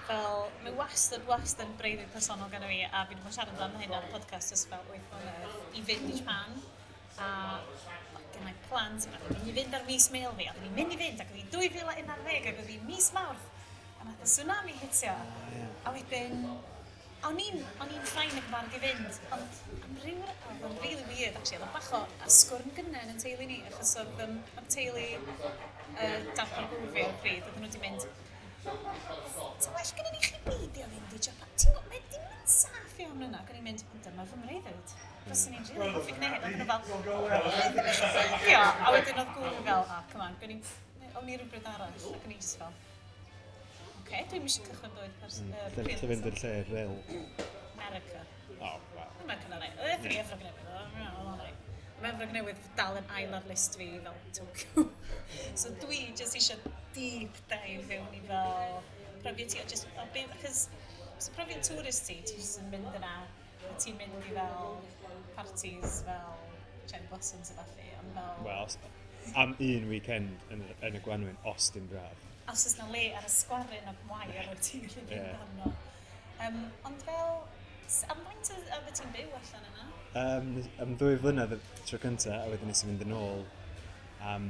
fel, mae wastad yn breuddwyd personol gan fi, a fi wedi bod yn siarad amdano hyn ar y podcast ers fel 8 mlynedd, i fynd i Japan, a gen i plans, a oedden ni'n mynd i fynd ar mis Mel fi, a oedden ni'n mynd i fynd, ac oedd hi 2011, ac oedd hi mis Mawrth, a nath y tsunami hitio. A wedyn, o'n i'n fine ac yn barod i fynd, ond am ryw, oedd o'n really weird, actually, oedd o'n bach o asgwrn gynnen yn teulu ni, achos oedd am teulu darpar gŵr fi ar y pryd, oedden nhw wedi mynd, ta well gyda ni chi beidio fynd i Japan. Ti'n gwybod, mae dim yn saff iawn yna. Ac o'n i'n mynd, ond dyma fy mreuddwyd. Fyswn i'n rili hoffi gwneud hyn. Oedden nhw fel, "Ddim eisiau beidio." A wedyn oedd gŵr fi fel, ah, come on, o'n i rhywbryd arall. Ac o'n i just fel, oce, dwi'm eisiau cychwyn bywyd Lle pryd fynd i'r lle real? America. Oh, wow. America na rai. Oedd e Efrog Newydd, oedd o'n rai. Mae Efrog Newydd dal yn ail ar list fi fel Tokyo. So dwi jyst eisiau deep dive fewn i fel profiad ti, o just, o be, achos so profiad tourist ti, ti jyst yn mynd yna, a ti'n mynd i fel parties fel cherry blossoms a ballu, ond fel... Wel, am un weekend yn y gwanwyn, os dim braf. Os oes na le ar y sgwarin o wair wyt ti'n gallu fynd Ie. arno. Ond fel, Am faint oedd ti'n byw allan yna? Am 2 flynedd y tro cyntaf, a wedyn nes i fynd yn ôl am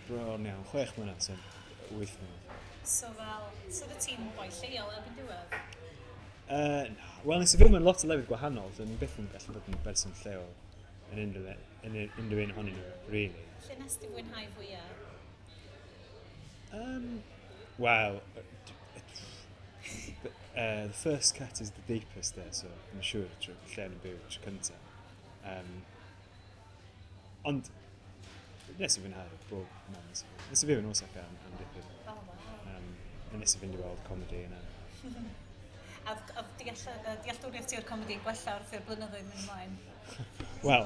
bron iawn 6 mlynedd, so 8 mlynedd. So fel, so oedd ti'n boi lleol erbyn diwedd? Na. Wel, nes i fyw mewn lot o lefydd gwahanol, so o'n i byth yn gallu bod yn berson lleol yn unrhyw un ohonyn nhw, really. Lle nes ti fwynhau fwyaf? Wel, the first cut is the deepest there, so I'm siŵr tro, lle o'n i'n byw tro cyntaf. Ond, nes i fwynhau bob man. Nes i fyw yn Osaka am dipyn. Oh, wow. A nes i fynd i weld comedy yna. A oedd dealltwriaeth ti o'r comedi yn gwella wrth i'r blynyddoedd mynd ymlaen? Wel,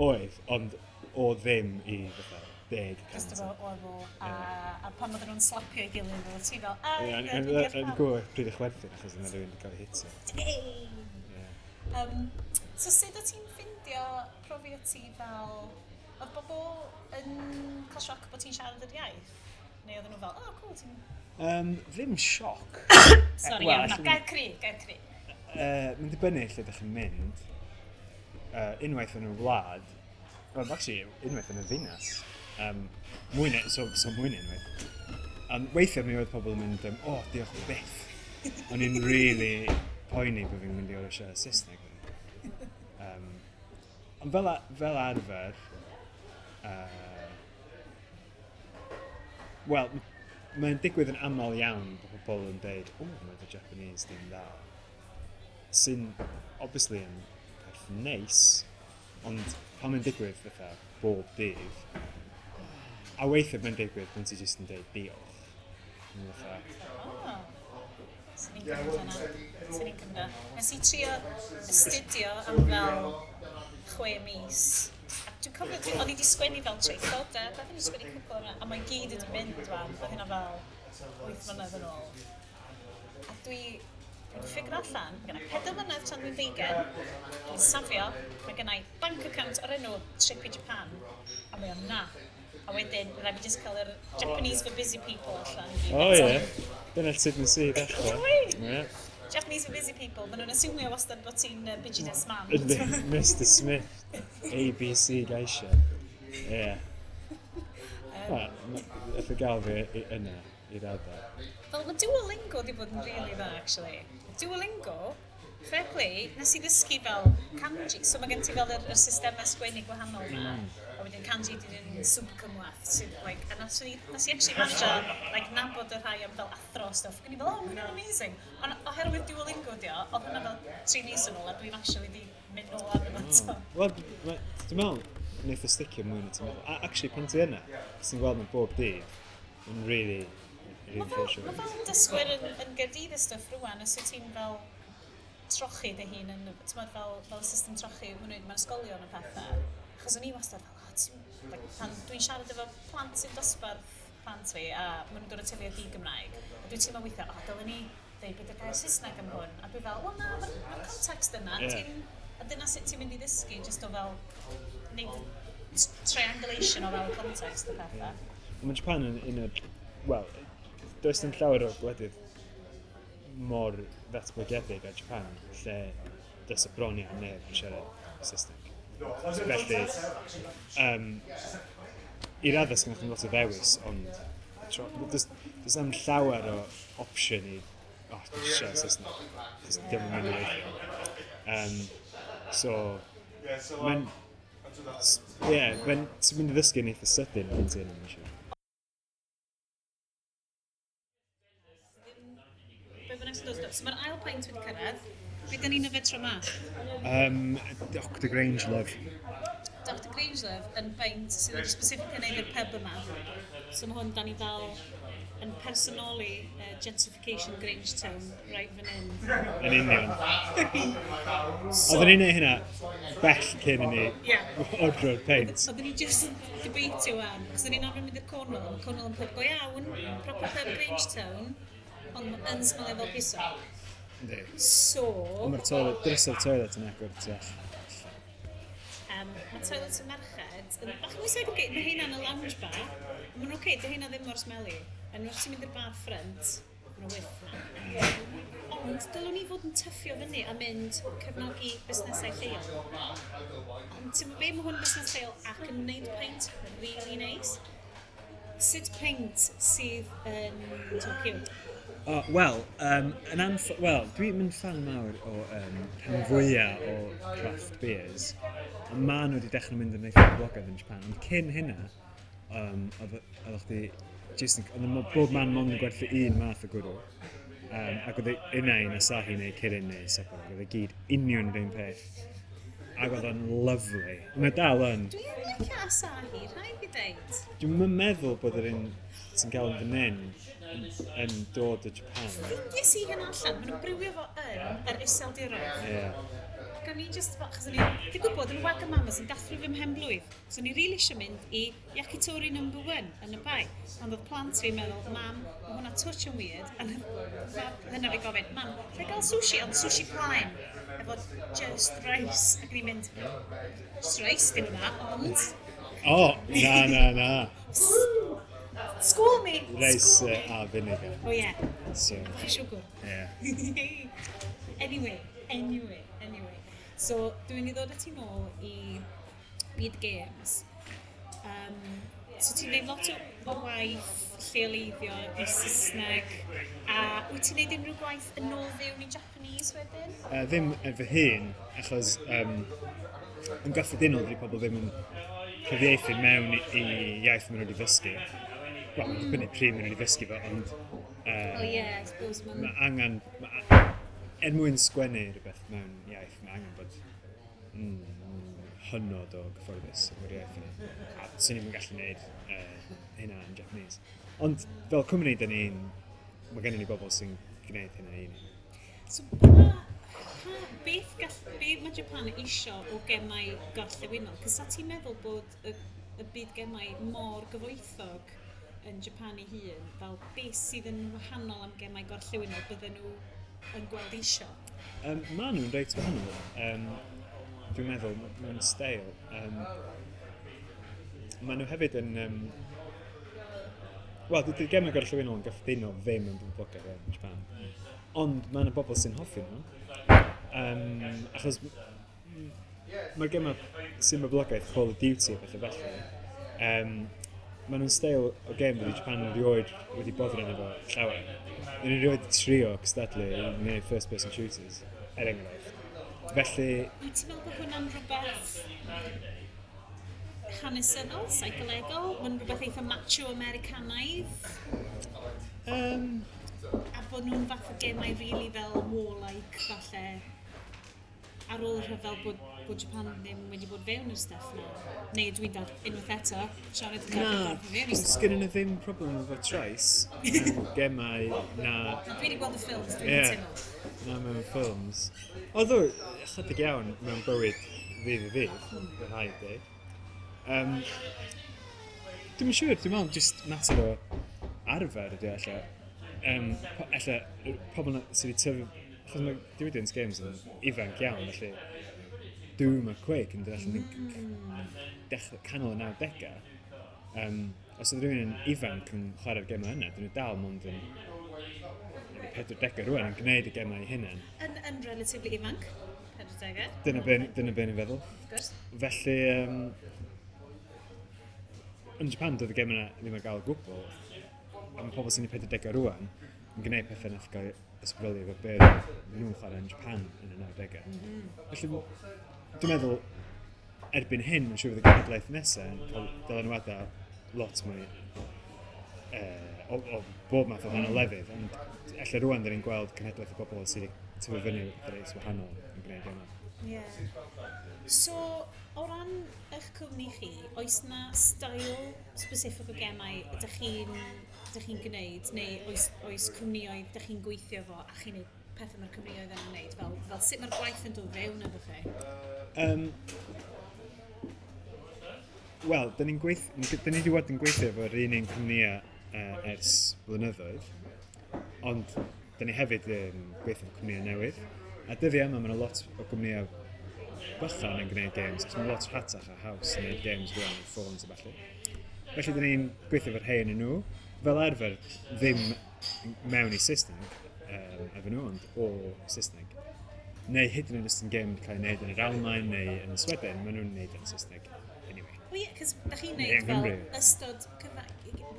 oedd, ond o ddim i fatha 10 Just cant. efo level, a pan oedden nhw'n slapio ei gilydd, oedd ti fel, a, Ie, ie, yn dwi'n deall yn pam. gwybod pryd i chwerthin achos yna rhywun wedi cael ei hitio. Hey! Ie. So sut o ti'n ffindio profiad ti fel... Oedd bobl yn cael sioc bod ti'n siarad yr iaith? Neu oedden nhw fel, oh, cool, ti'n... Ddim sioc. Sorry, Wel, iawn, na, gair cry, gair cry. Mae'n dibynnu lle ydych chi'n mynd. Unwaith yn y wlad, well, actually, unwaith yn y ddinas. Mwy na, so mwy na unwaith. Weithiau mi oedd pobl yn mynd, "Oh, diolch byth." O'n i'n really poeni bod fi'n mynd i orfod siarad Saesneg. Ond fel arfer, wel, mae'n digwydd yn aml iawn bod pobl yn deud, "Oh, mae dy Japanese di'n dda." Sy'n, obviously, yn peth neis, ond pan mae'n digwydd fatha bob dydd, a weithiau mae'n digwydd pan ti jyst yn deud diolch. Mae'n fatha, Oh. Swn i'n cymryd hwnna. Swn i'n cymryd hwnna. Nes i trio astudio am fel 6 mis. A dwi'n cofio, o'n i wedi sgwennu fel traethodau, beth o'n i wedi sgwennu cwpl yna, a mae gyd wedi mynd wan, oedd hynna fel 8 mlynedd yn ôl. A dwi wedi figure allan, mae gennai 4 mlynedd tan dwi'n 20, dwi'n safio, mae gennai bank account o'r enw Trip i Japan, a mae o'n na. A wedyn, rhaid fi just cael yr Japanese for Busy People allan i gyd. O ie, dyna sut nes i ddechrau. Dwi? Ie. Japanese for Busy People, maen nhw'n asumio wastad bod ti'n business man. Yndi, Mr Smith, ABC Geisha. Ie. Wel, nath o gael fi yna, i raddau. Fel, mae Duolingo wedi bod yn really dda, actually. Duolingo, fair play, nes i ddysgu fel kanji. So mae gen ti fel yr systemau sgwennu gwahanol yma. A wedyn kanji di yn super cymhleth. Sydd, like, a nes i actually manage like, nabod y rhai am fel athro a stuff. Ac o'n i fel, "Oh, mae hwnna'n amazing." Ond oherwydd Duolingo di o, oedd hwnna fel 3 mis yn ôl, a dwi'n actually di mynd nôl arno fo eto. Wel, dwi'n meddwl, wneith o sticio mwy na ti'n meddwl. A actually, pan ti yna, ti'n gweld nhw bob dydd, yn really, really Mae fel, ffresio. ma fel dysgwyr yn Gaerdydd y stwff rwan, os wyt ti'n fel trochi dy hun yn, ti'n meddwl fel system trochi maen nhw'n mewn ysgolion a pethau. Achos o'n i wastad fel, oh, ti'n, like, pan dwi'n siarad efo plant sy'n dosbarth plant fi, a maen nhw'n dod o teulu di-Gymraeg, a dwi'n teimlo weithiau, "O, oh, dylen ni dweud beth yw'r gair Saesneg am hwn." A dwi fel, "Wel na, mae'r ma context yna," ti'n, a dyna sut ti'n mynd i ddysgu, just o fel, neud y triangulation o fel context a pethau. Mae Japan yn un o'r... Wel, does dim llawer o gwledydd mor ddatblygedig â Japan, lle does y bron iawn neb yn siarad Saesneg. Felly, i raddau sgynnoch chi'n lot o ddewis, ond does am llawer o opsiwn i, "Oh, dwi'n siarad Saesneg," chos dim yn mynd i weithio. So, mae'n... Ie, yeah, mae'n... Ti'n mynd i ddysgu yn eitha sydyn pan ti yna, mae'n siŵr. Be bynnag sy'n dod. So mae'r ail peint wedi cyrraedd. Be da ni'n yfed tro ma? Dr Grangelove. Dr Grangelove yn beint sydd wedi specifically wneud i'r pub yma. So mae hwn, da ni fel yn personoli gentrification Grangetown right fan hyn. Yn union. Oedden ni'n neud hynna bell cyn i ni ordro'r peint. Oedden ni just yn debatio wan, achos oedden ni'n arfer mynd i'r Cornwall, mae Cornwall yn pub go iawn, proper pub Grangetown, ond yn smelio fel piso. Yndi. So, Ond mae'r toilet, drysau'r toilet yn agor tu allan. Mae toilet y merched yn bach mwy segregated, mae heina yn y lounge bar, maen nhw'n okay, dy heina ddim mor smelly. Yn wrth ti'n mynd i'r bar ffrynt, maen nhw whiff na. Ond dylwn ni fod yn tyffio fyny a mynd cefnogi busnesau lleol. Ond ti'n be, mae hwn yn busnes lleol ac yn gwneud peint really nice. Sut peint sydd yn Tokyo? Oh, Wel, well, dwi'n mynd fan mawr o rhan fwyaf o craft beers. Ond maen nhw wedi dechrau mynd yn eitha boblogaidd yn Japan. Ond cyn hynna, oedd chdi just yn, oedd bob man mond yn gwerthu un math o gwrw. Ac oedd e unai yn Asahi neu Kirin neu Sapporo. Oedd e gyd union yr un peth. Ac oedd o'n lovely. Mae dal yn. Dwi'n licio Asahi, rhaid fi ddeud. Dwi'n meddwl bod yr un sy'n gael yn fan hyn yn dod o Japan. Ffeindies i hyn allan, maen nhw'n brewio fo yn yr Iseldiroedd. Ie. Yeah. Ac o'n i just, fel, achos o'n i, dwi'n gwybod, yn Wagamama's yn dathlu fy mhen blwydd. So o'n i rili eisiau mynd i Yakitori No. 1 yn y bai. Ond oedd plant fi'n meddwl, "Mam, mae hwnna touch yn weird." A hynna fi gofyn, "Mam, lle gael sushi?" Ond sushi plaen, efo just rice. Ac o'n i'n mynd, "Just rice, dim yma, ond." O, oh, na, na, na. School me! Rice School me. A vinegar. Oh yeah, So, bach o siwgr. yeah. Anyway. So, dwi'n mynd i ddod â ti nôl i byd games. So, ti'n gwneud lot o waith lleoleiddio i Saesneg. A wyt ti'n gwneud unrhyw gwaith yn ôl fewn i Japanese wedyn? Ddim yn fy hun, achos yn gyffredinol dydy pobl ddim yn cyfieithu mewn i iaith maen nhw wedi ddysgu. Wel, mae'n dibynnu pryd maen nhw wedi ddysgu fo, ond Oh yeah, I suppose mae'n. mae angen, er mwyn sgwennu rhywbeth mewn iaith, mae angen bod hynod o gyfforddus efo'r iaith yna. A swn i'm yn gallu gwneud hynna yn Japanese. Ond fel cwmni, mae gennym ni bobl sy'n gwneud hynna i ni. So, beth be mae Japan isio o gemau gorllewinol? Cos sa ti'n meddwl bod y byd gemau mor gyfoethog yn Japan ei hun, fel beth sydd yn wahanol am gemau gorllewinol bydden nhw yn gweld isio? Maen nhw'n reit wahanol. Dwi'n meddwl, mewn steil. Maen nhw hefyd yn... Wel, dydy'r gemau gorllewinol yn gyffredinol ddim yn boblogaidd yn Japan. Ond mae yna bobl sy'n hoffi nhw. Achos mae'r gemau sy'n boblogaidd, Call of Duty a pethau felly, maen nhw'n steil o gêm wedi Japan erioed wedi boddran efo llawer. Dyn nhw erioed trio cystadlu i wneud first person shooters, er enghraifft. Felly, Wyt ti'n meddwl bod hwnna'n rhywbeth hanesyddol, seicolegol? Mae'n rhywbeth eitha macho Americanaidd? A bod nhw'n fath o gemau really fel warlike, falle, ar ôl y rhyfel bod Japan ddim wedi bod fewn i'r stuff na. Neu dwi'n dad unwaith eto, siarad yn Na, dad fewn i'r stuff. sgynnon nhw ddim problem efo trais mewn gemau na, Dwi wedi gweld y ffilms, dwi'n cytuno. Na mewn ffilms. Oedd o ychydig iawn mewn bywyd ddydd i ddydd, fy rhaid dweud. Dwi'm yn siŵr, dwi'n meddwl just mater o arfer ydy o ella. Ella, y pobl na sydd wedi tyfu, achos mae diwydiant games yn ifanc iawn, felly Doom a Quake yn dod allan yn dechrau canol y 90au. Os oedd rhywun yn ifanc yn chwarae'r gemau yna, dyn nhw dal mond yn 40 rwan yn gwneud y gemau eu hunain. Yn relatively ifanc, 40au. Dyna be ni'n feddwl. Of course. Felly, yn Japan, doedd y gemau yna ddim ar gael o gwbl. A mae pobl sy'n eu 40au rwan yn gwneud pethau nath gael ysbrydoli efo be nhw'n chwarae yn Japan yn y 90au. Felly, dwi'n meddwl, erbyn hyn, mae'n siŵr fydd y genhedlaeth nesaf yn cael dylanwadau lot mwy o bob math o wahanol lefydd, ond ella rwan dyn ni'n gweld cenhedlaeth o bobl sydd wedi tyfu fyny efo pethau reit wahanol yn gwneud yma. Yeah. So, o ran eich cwmni chi, oes na style specific o gemau ydych chi'n gwneud, neu oes cwmnioedd ydych chi'n gweithio fo a chi'n gwneud pethau mae'r cwmnioedd yna'n gwneud, fel sut mae'r gwaith yn dod fewn efo chi? Wel, dyn ni wedi bod yn gweithio efo'r un cwmnïau ers blynyddoedd, ond dyn ni hefyd yn gweithio efo cwmnïau newydd. A dyddiau yma, mae yna lot o gwmnïau bychan yn gwneud games, achos mae'n lot rhatach a haws yn gwneud games rwan ar ffôns a ballu. Felly, dyn ni'n gweithio efo'r rhai yn nhw. Fel arfer, ddim mewn i Saesneg. efo nhw, ond o Saesneg. Neu hyd yn oed os yn gêm cael ei wneud yn yr Almaen neu yn Sweden, maen nhw'n wneud yn Saesneg anyway. Wel ie, cos da chi'n neud fel ystod cyfa...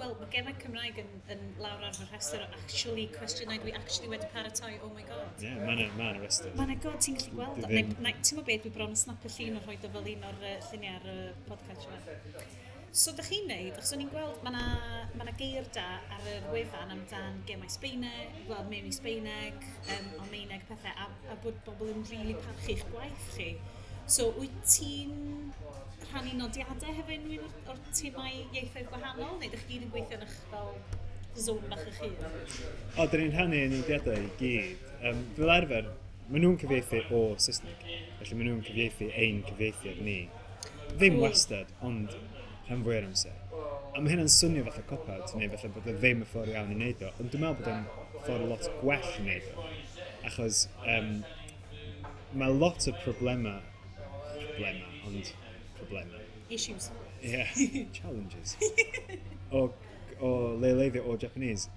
Wel, mae gemau Cymraeg yn lawr ar fy rhestr o actually cwestiynau dwi actually wedi paratoi, oh my God. Ie, yeah, mae'n ma rhestr. Mae'n god, ti'n gallu gweld o. Ti'n meddwl beth, dwi bron yn snap y llun o rhoi o fel un o'r lluniau ar y podcast yma. So, da chi'n neud, achos o'n i'n gweld, mae yna geir da ar yr wefan amdan gemau Sbeineg, wel, mewn i Sbeineg, Almaeneg, pethau, a bod bobl yn rili really parchu'ch gwaith chi. So, wyt ti'n rhannu nodiadau hefo unrhyw un o'r timau ieithoedd gwahanol, neu ydych chi gyd yn gweithio yn eich fel zone bach eich hun? O, dyn ni'n rhannu nodiadau i gyd. Fel arfer, maen nhw'n cyfieithu o Saesneg, felly maen nhw'n cyfieithu ein cyfieithiad ni. Ddim wastad, ond rhan fwy o'r amser. A mae hynna'n swnio fatha cop-out, neu fatha bod o ddim y ffordd iawn i wneud o, ond dwi'n meddwl bod o'n ffordd lot gwell i wneud o. Achos mae lot o problemau, ond problemau. Issues. Yeah, challenges. O leoleiddio o Japanese,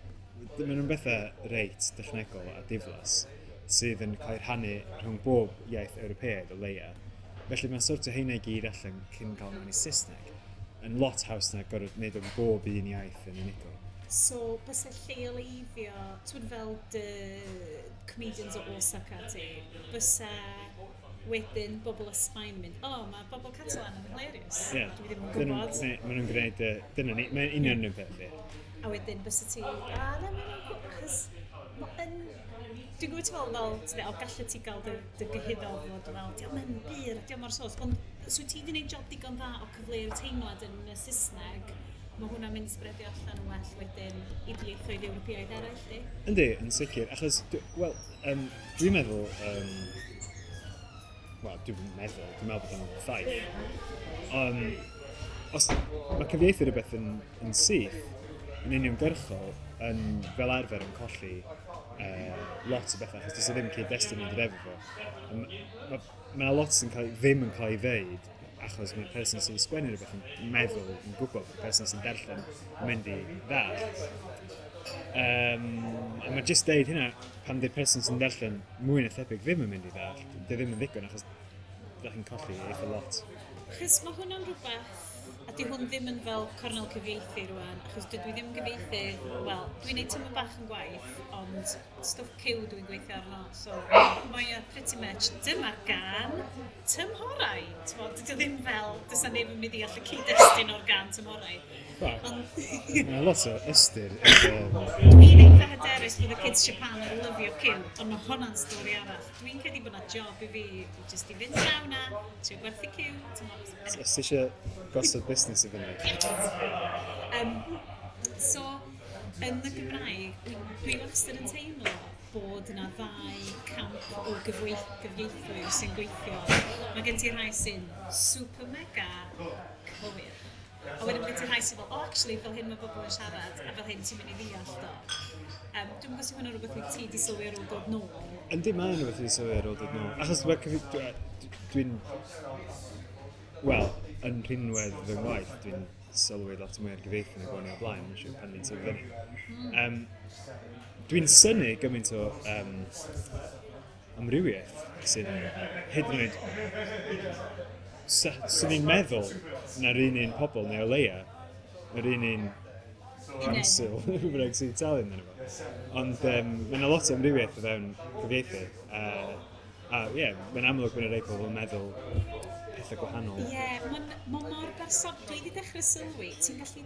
maen nhw'n bethau reit dechnegol a diflas sydd yn cael ei rhannu rhwng bob iaith Ewropeaidd o leia. Felly mae'n sort o heina i gyd allan cyn cael mewn i Saesneg. Yn lot haws na gorfod wneud o'n bob un iaith yn unigol. So, byse lleoleiddio, ti'n fel dy comedians o Osaka ti, byse wedyn bobl o Sbaen yn mynd, oh, mae bobl Catalan yn hilarious. Yeah. Dwi ddim yn gwybod. Maen nhw'n gwneud, dyna ni, mae'n union yn peth, ie. A wedyn byse ti, a na, maen nhw'n gwybod, achos mae'n... Dwi'n gwybod ti'n fel, ti'n o, gallu ti gael dy gyhuddo fod fel, diolch yn byr, diolch mor sos, ond so ti wedi gwneud job digon dda o cyfleu'r teimlad yn y Saesneg, mae hwnna'n mynd i sbredio allan yn well wedyn i ieithoedd Ewropeaidd eraill, di? Yndi, yn sicr, achos, wel, dwi'n meddwl, wel, dwi'n meddwl bod o'n ffaith. Os mae cyfieithu rhywbeth yn syth, yn uniongyrchol, yn fel arfer yn colli lot o bethau, achos does e ddim cyd-destun yn dod efo fo. Mae yna lot sy'n ddim yn cael ei ddeud, achos mae'r person sy'n sgwennu rhywbeth yn meddwl, yn gwybod bod y person sy'n darllen yn mynd i ddallt. A mae jyst deud hynna, pan di'r person sy'n darllen mwy na thebyg ddim yn mynd i ddallt, di ddim yn ddigon, achos da chi'n colli eitha lot. Achos mae hwnna'n rhywbeth, a di hwn ddim yn fel cornel cyfieithu rwan, achos dydw i ddim yn gyfieithu, wel, dwi'n neud tymor bach yn gwaith, ond stwff cyw dwi'n gweithio arno, so mae o pretty much, dyma'r gan tymhorau. T'mod, dydy o ddim fel, does 'na neb yn mynd i allu cyd-destun o'r gan tymhorau. Mae lot o ystyr. Dwi'n eitha hyderus bod y kids Japan yn lyfio cyw, ond mae hwnna'n stori arall. Dwi'n credu bod 'na job i fi jyst i fynd draw na, trio gwerthu cyw. Os ti eisiau gosod busnes i fyny. So, yn y Gymraeg, dwi wastad yn teimlo bod yna ddau camp o gyfieithwyr sy'n gweithio. Mae gen ti rhai sy'n super mega cywir. A wedyn mae gen ti rhai sy'n fel, oh, actually, fel hyn mae bobl yn siarad, a fel hyn ti'n mynd i ddeall do. Dwi'n gwybod os yw hwnna'n rhywbeth wyt ti di sylwi ar ôl dod nôl. Yndi, mae'n rhywbeth wedi sylwi ar ôl dod nôl. Achos dwi'n... Wel, yn rhinwedd fy ngwaith, dwi'n sylwi lot mwy ar gyfieithu nag o'n i o blaen, mae'n siŵr pan ni'n tyfu fyny. Dwi'n synnu gymaint o amrywiaeth sy'n hyd yn oed... Swn i'n meddwl na'r un pobl neu o leia, yr un council, rhywbeth bynnag sy'n talu amdano fo. Ond mae yna lot o amrywiaeth o fewn cyfieithu. A ie, mae'n amlwg bod yna rhai pobl yn meddwl pethau gwahanol. Ie, mae'n mor berson... Dwi wedi dechrau sylwi, ti'n gallu...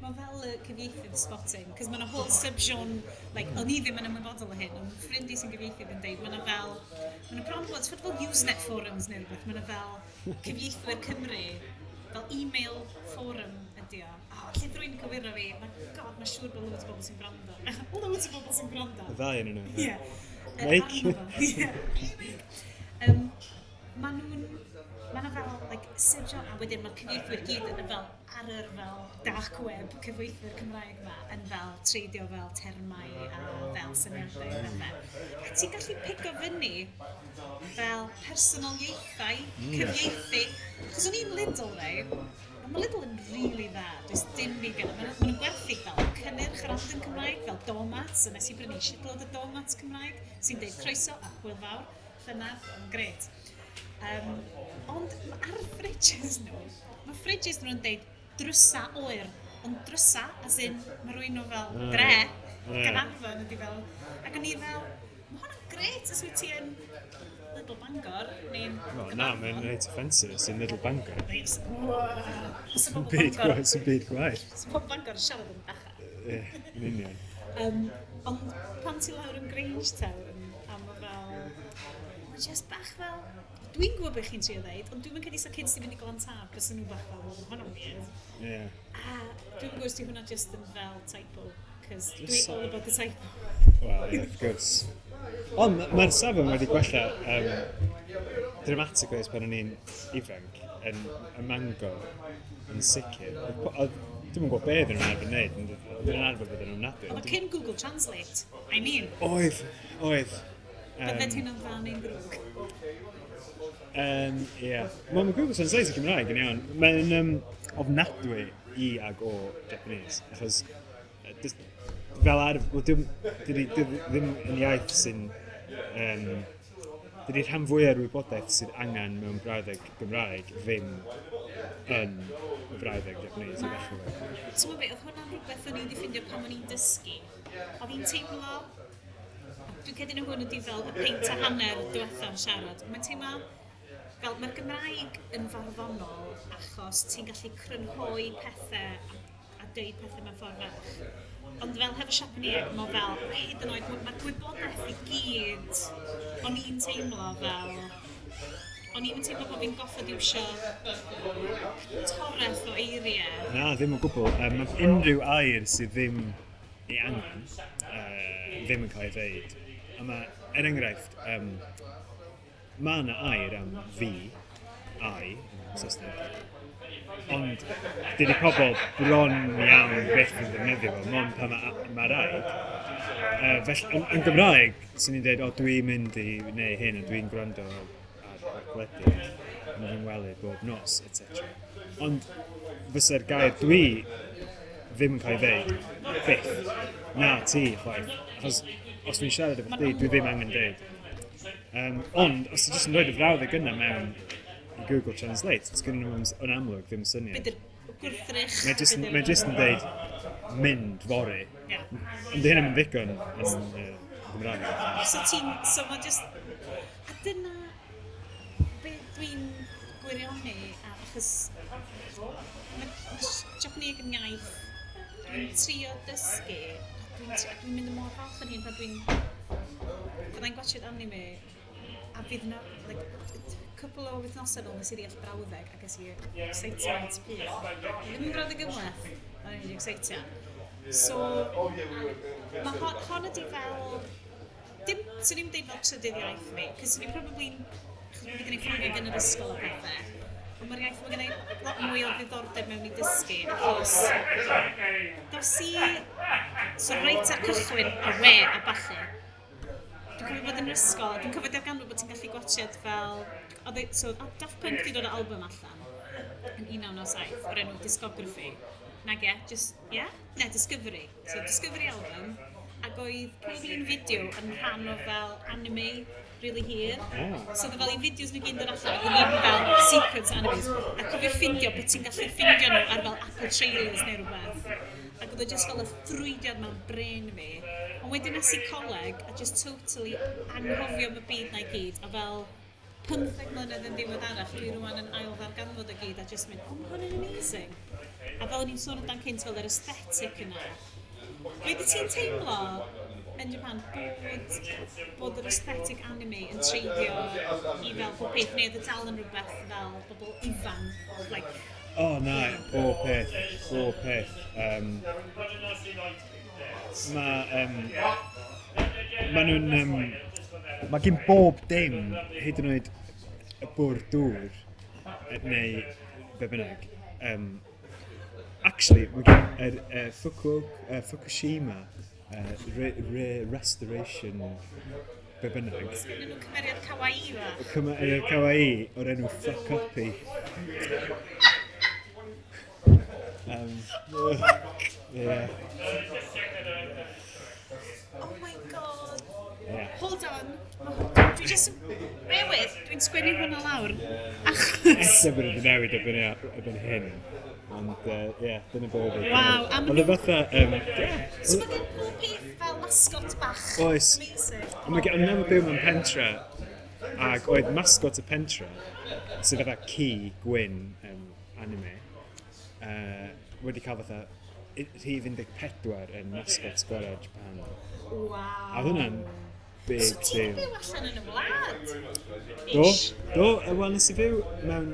Mae fel y cyfieithydd spotting, cos mae yna whole sub-genre, like, o'n i ddim yn ymwybodol o hyn, ond ffrind i sy'n gyfieithydd yn deud, mae yna fel, mae yna bron bod, fel Usenet forums neu rhywbeth, mae yna fel cyfieithwyr Cymru, fel email forum ydi o. Oh, lle rwy'n cywiro fi, mae, god, mae'n siŵr bod loads o bobl sy'n gwrando. Loads o bobl sy'n gwrando. Y ddau yn nhw. Ie. Mike. Ie. Mae nhw'n... Mae yna fel, like, sub-genre, a wedyn mae'r cyfieithwyr gyd yn fel ar yr fel dark web cyfieithwyr Cymraeg ma yn fel treidio fel termau a fel syniadau a pethau. A ti'n gallu pigo fyny fel personoliaethau cyfieithu. Achos o'n i'n Lidl, rei, Mae Lidl yn really dda, does dim byd gen. Maen nhw'n gwerthu fel cynnyrch random Cymraeg, fel doormats, a nes i brynu shitload o doormats Cymraeg, sy'n deud "croeso a hwyl fawr", llynedd, yn gret. Ond ar y fridges nhw, mae fridges nhw'n deud "drysa oer", ond drysa, as in, mae rhywun nhw fel dre, Gaernarfon ydi fel, ac o'n i fel, mae hwnna'n gret os wyt ti yn Lidl Bangor, neu'n Wel, na, mae'n reit offensive sy'n Lidl Bangor. Reit, wow. Sy'n byd gwaith, sy'n byd gwaith. Sy'n pobl Bangor yn siarad yn bachau. Ie, yn union. Ond pan ti lawr yn Grangetown, a mae fel, mae just bach fel, dwi'n gwybod beth chi'n trio ddeud, ond dwi'n credu sa kids di fynd i Glantaf, bysa nhw bach fel, "Well, ma' hwnna'n weird." A dwi'n gwybod os di hwnna just yn fel typo, cos dwi all about the typo. Wel, ie, wrth gwrs. Ond mae'r safon wedi gwella dramatically ers pan o'n i'n ifanc yn y Mangor yn sicr. Dwi'm yn gwybod be oedden nhw'n arfer wneud, ond oedden nhw'n arfer bod yn ofnadwy. Oedd o cyn Google Translate, I mean, Oedd. Bydded hynna'n dda neu'n ddrwg? Ie. Wel, mae Google Translate yn Cymraeg yn iawn. Mae'n ofnadwy i ag o Japanese, achos fel arf, wel, dydi ddim yn iaith sy'n... Dydi'r rhan fwyaf o'r wybodaeth sydd angen mewn brawddeg Gymraeg ddim yn y brawddeg Japanese i ddechrau fo. Ti'n gwybod beth, oedd hwnna'n rhywbeth o'n i wedi ffindio pan o'n i'n dysgu. Oedd hi'n teimlo, dwi'n credu na hwn ydi fel y peint a hanner diwethaf yn siarad. Mae'n teimlo fel mae'r Gymraeg yn farddonol achos ti'n gallu crynhoi pethau a deud pethau mewn ffordd fach. Ond fel hefo Siapaneg, mae fel, hyd yn oed, mae'r gwybodaeth i gyd, o'n i'n teimlo fel, o'n i'n teimlo bod fi'n goffod iwsio toreth o eiriau. Na, ddim o gwbl. Mae unrhyw air sydd ddim ei angen, ddim yn cael ei ddeud. A mae, er enghraifft, mae yna air am fi, I, yn Saesneg, ond dydy pobl bron iawn byth yn ddefnyddio fo, mond pan ma rhaid. Felly, yn Gymraeg, swn i'n dweud, "O, dwi'n mynd i wneud hyn, a dwi'n gwrando ar gwledydd, yn fy ngwely bob nos," etc. Ond fysa'r gair "dwi" ddim yn cael ei ddeud, byth. Na, ti, chwaith. Achos os dwi'n siarad efo chdi, dwi ddim angen deud. Ond, os ti jyst yn rhoi y frawddeg yna mewn i Google Translate, os gynnu nhw yn amlwg ddim syniad. Be di'r gwrthrych? Mae jyst yn deud "mynd fory". Ond di hynny'n ddigon yn Gymraeg. So mae just, a dyna be dwi'n gwirioni, a achos mae Japanese yn iaith dwi'n trio dysgu, a dwi'n mynd yn mor falch yn hyn pan fyddai'n gwatchiad anime, a fydd yna, like, cwpl o wythnosau nôl nes i ddeall brawddeg a ges i excitement pur. Ddim yn brawddeg gymhleth, ond o'n i'n excitio. So, mae hon ydi fel, dim, swn i'n deud fel trydydd iaith fi, cos swn i'n probably, achos bod fi gen i Ffrangeg yn yr ysgol a pethau, ond mae'r iaith, mae gen i lot mwy o ddiddordeb mewn i dysgu, achos dos i, so reit ar cychwyn y we a ballu, dwi'n cofio bod yn yr ysgol, dwi'n cofio darganfod bod ti'n gallu gwatchiad fel, so oedd Daft Punk wedi dod o album allan yn 1997 o'r enw Discography. Nag ie, just, ie? Yeah? Ne, Discovery. So Discovery album, ac oedd pob un fideo yn rhan o fel anime really hir. So oedd fel i fideos nhw gyd yn dod allan, oedd yn fel sequence animes. A cofio ffindio bod ti'n gallu ffindio nhw ar fel Apple Trailers neu rhywbeth. Ac oedd o just fel y ffrwydiad mewn brain fi. Ond wedyn nes i coleg a just totally anghofio am y byd na i gyd. A fel 15 mlynedd yn ddiweddarach, dwi rwan yn ail ddarganfod o gyd a just mynd, "Oh, mae hwn yn amazing." A fel o'n i'n sôn amdan cynt, fel yr aesthetic yna. Wedi ti'n teimlo yn Japan bod yr aesthetic anime yn treiddio i fel pob peth, neu oedd y dal yn rhywbeth fel bobl ifanc, like, O, na, bob peth, bob peth. Ma nhw'n... mae gen bob dim, hyd yn oed y bwrdd dŵr, neu be bynnag. Actually, mae gen yr Fukushima restoration be bynnag. Sgennyn nhw cymeriad kawaii fa. Cymeriad kawaii o'r enw Fuck Uppy. Oh my God. Yeah. Oh my God. Yeah. Hold on. Dwi just... Bear with, dwi'n sgwennu hwnna lawr. Achos... Ella bod wedi newid erbyn hyn. Ond, ie, dyna be oedd e. Waw, a ma' Oedd e nhw- fatha... Yeah. So mae gen pob peth fel mascot bach. Oes. Amazing. Ond mae gen- o'n i'n byw mewn pentre, ac oedd mascot y pentre, sydd fatha ci gwyn anime, wedi cael fatha rhif 14 yn mascot gorau Japan. Waw. A oedd hwnna'n big So ti'n deal. byw allan yn y wlad? Do, Ish. do, wel nes i fyw mewn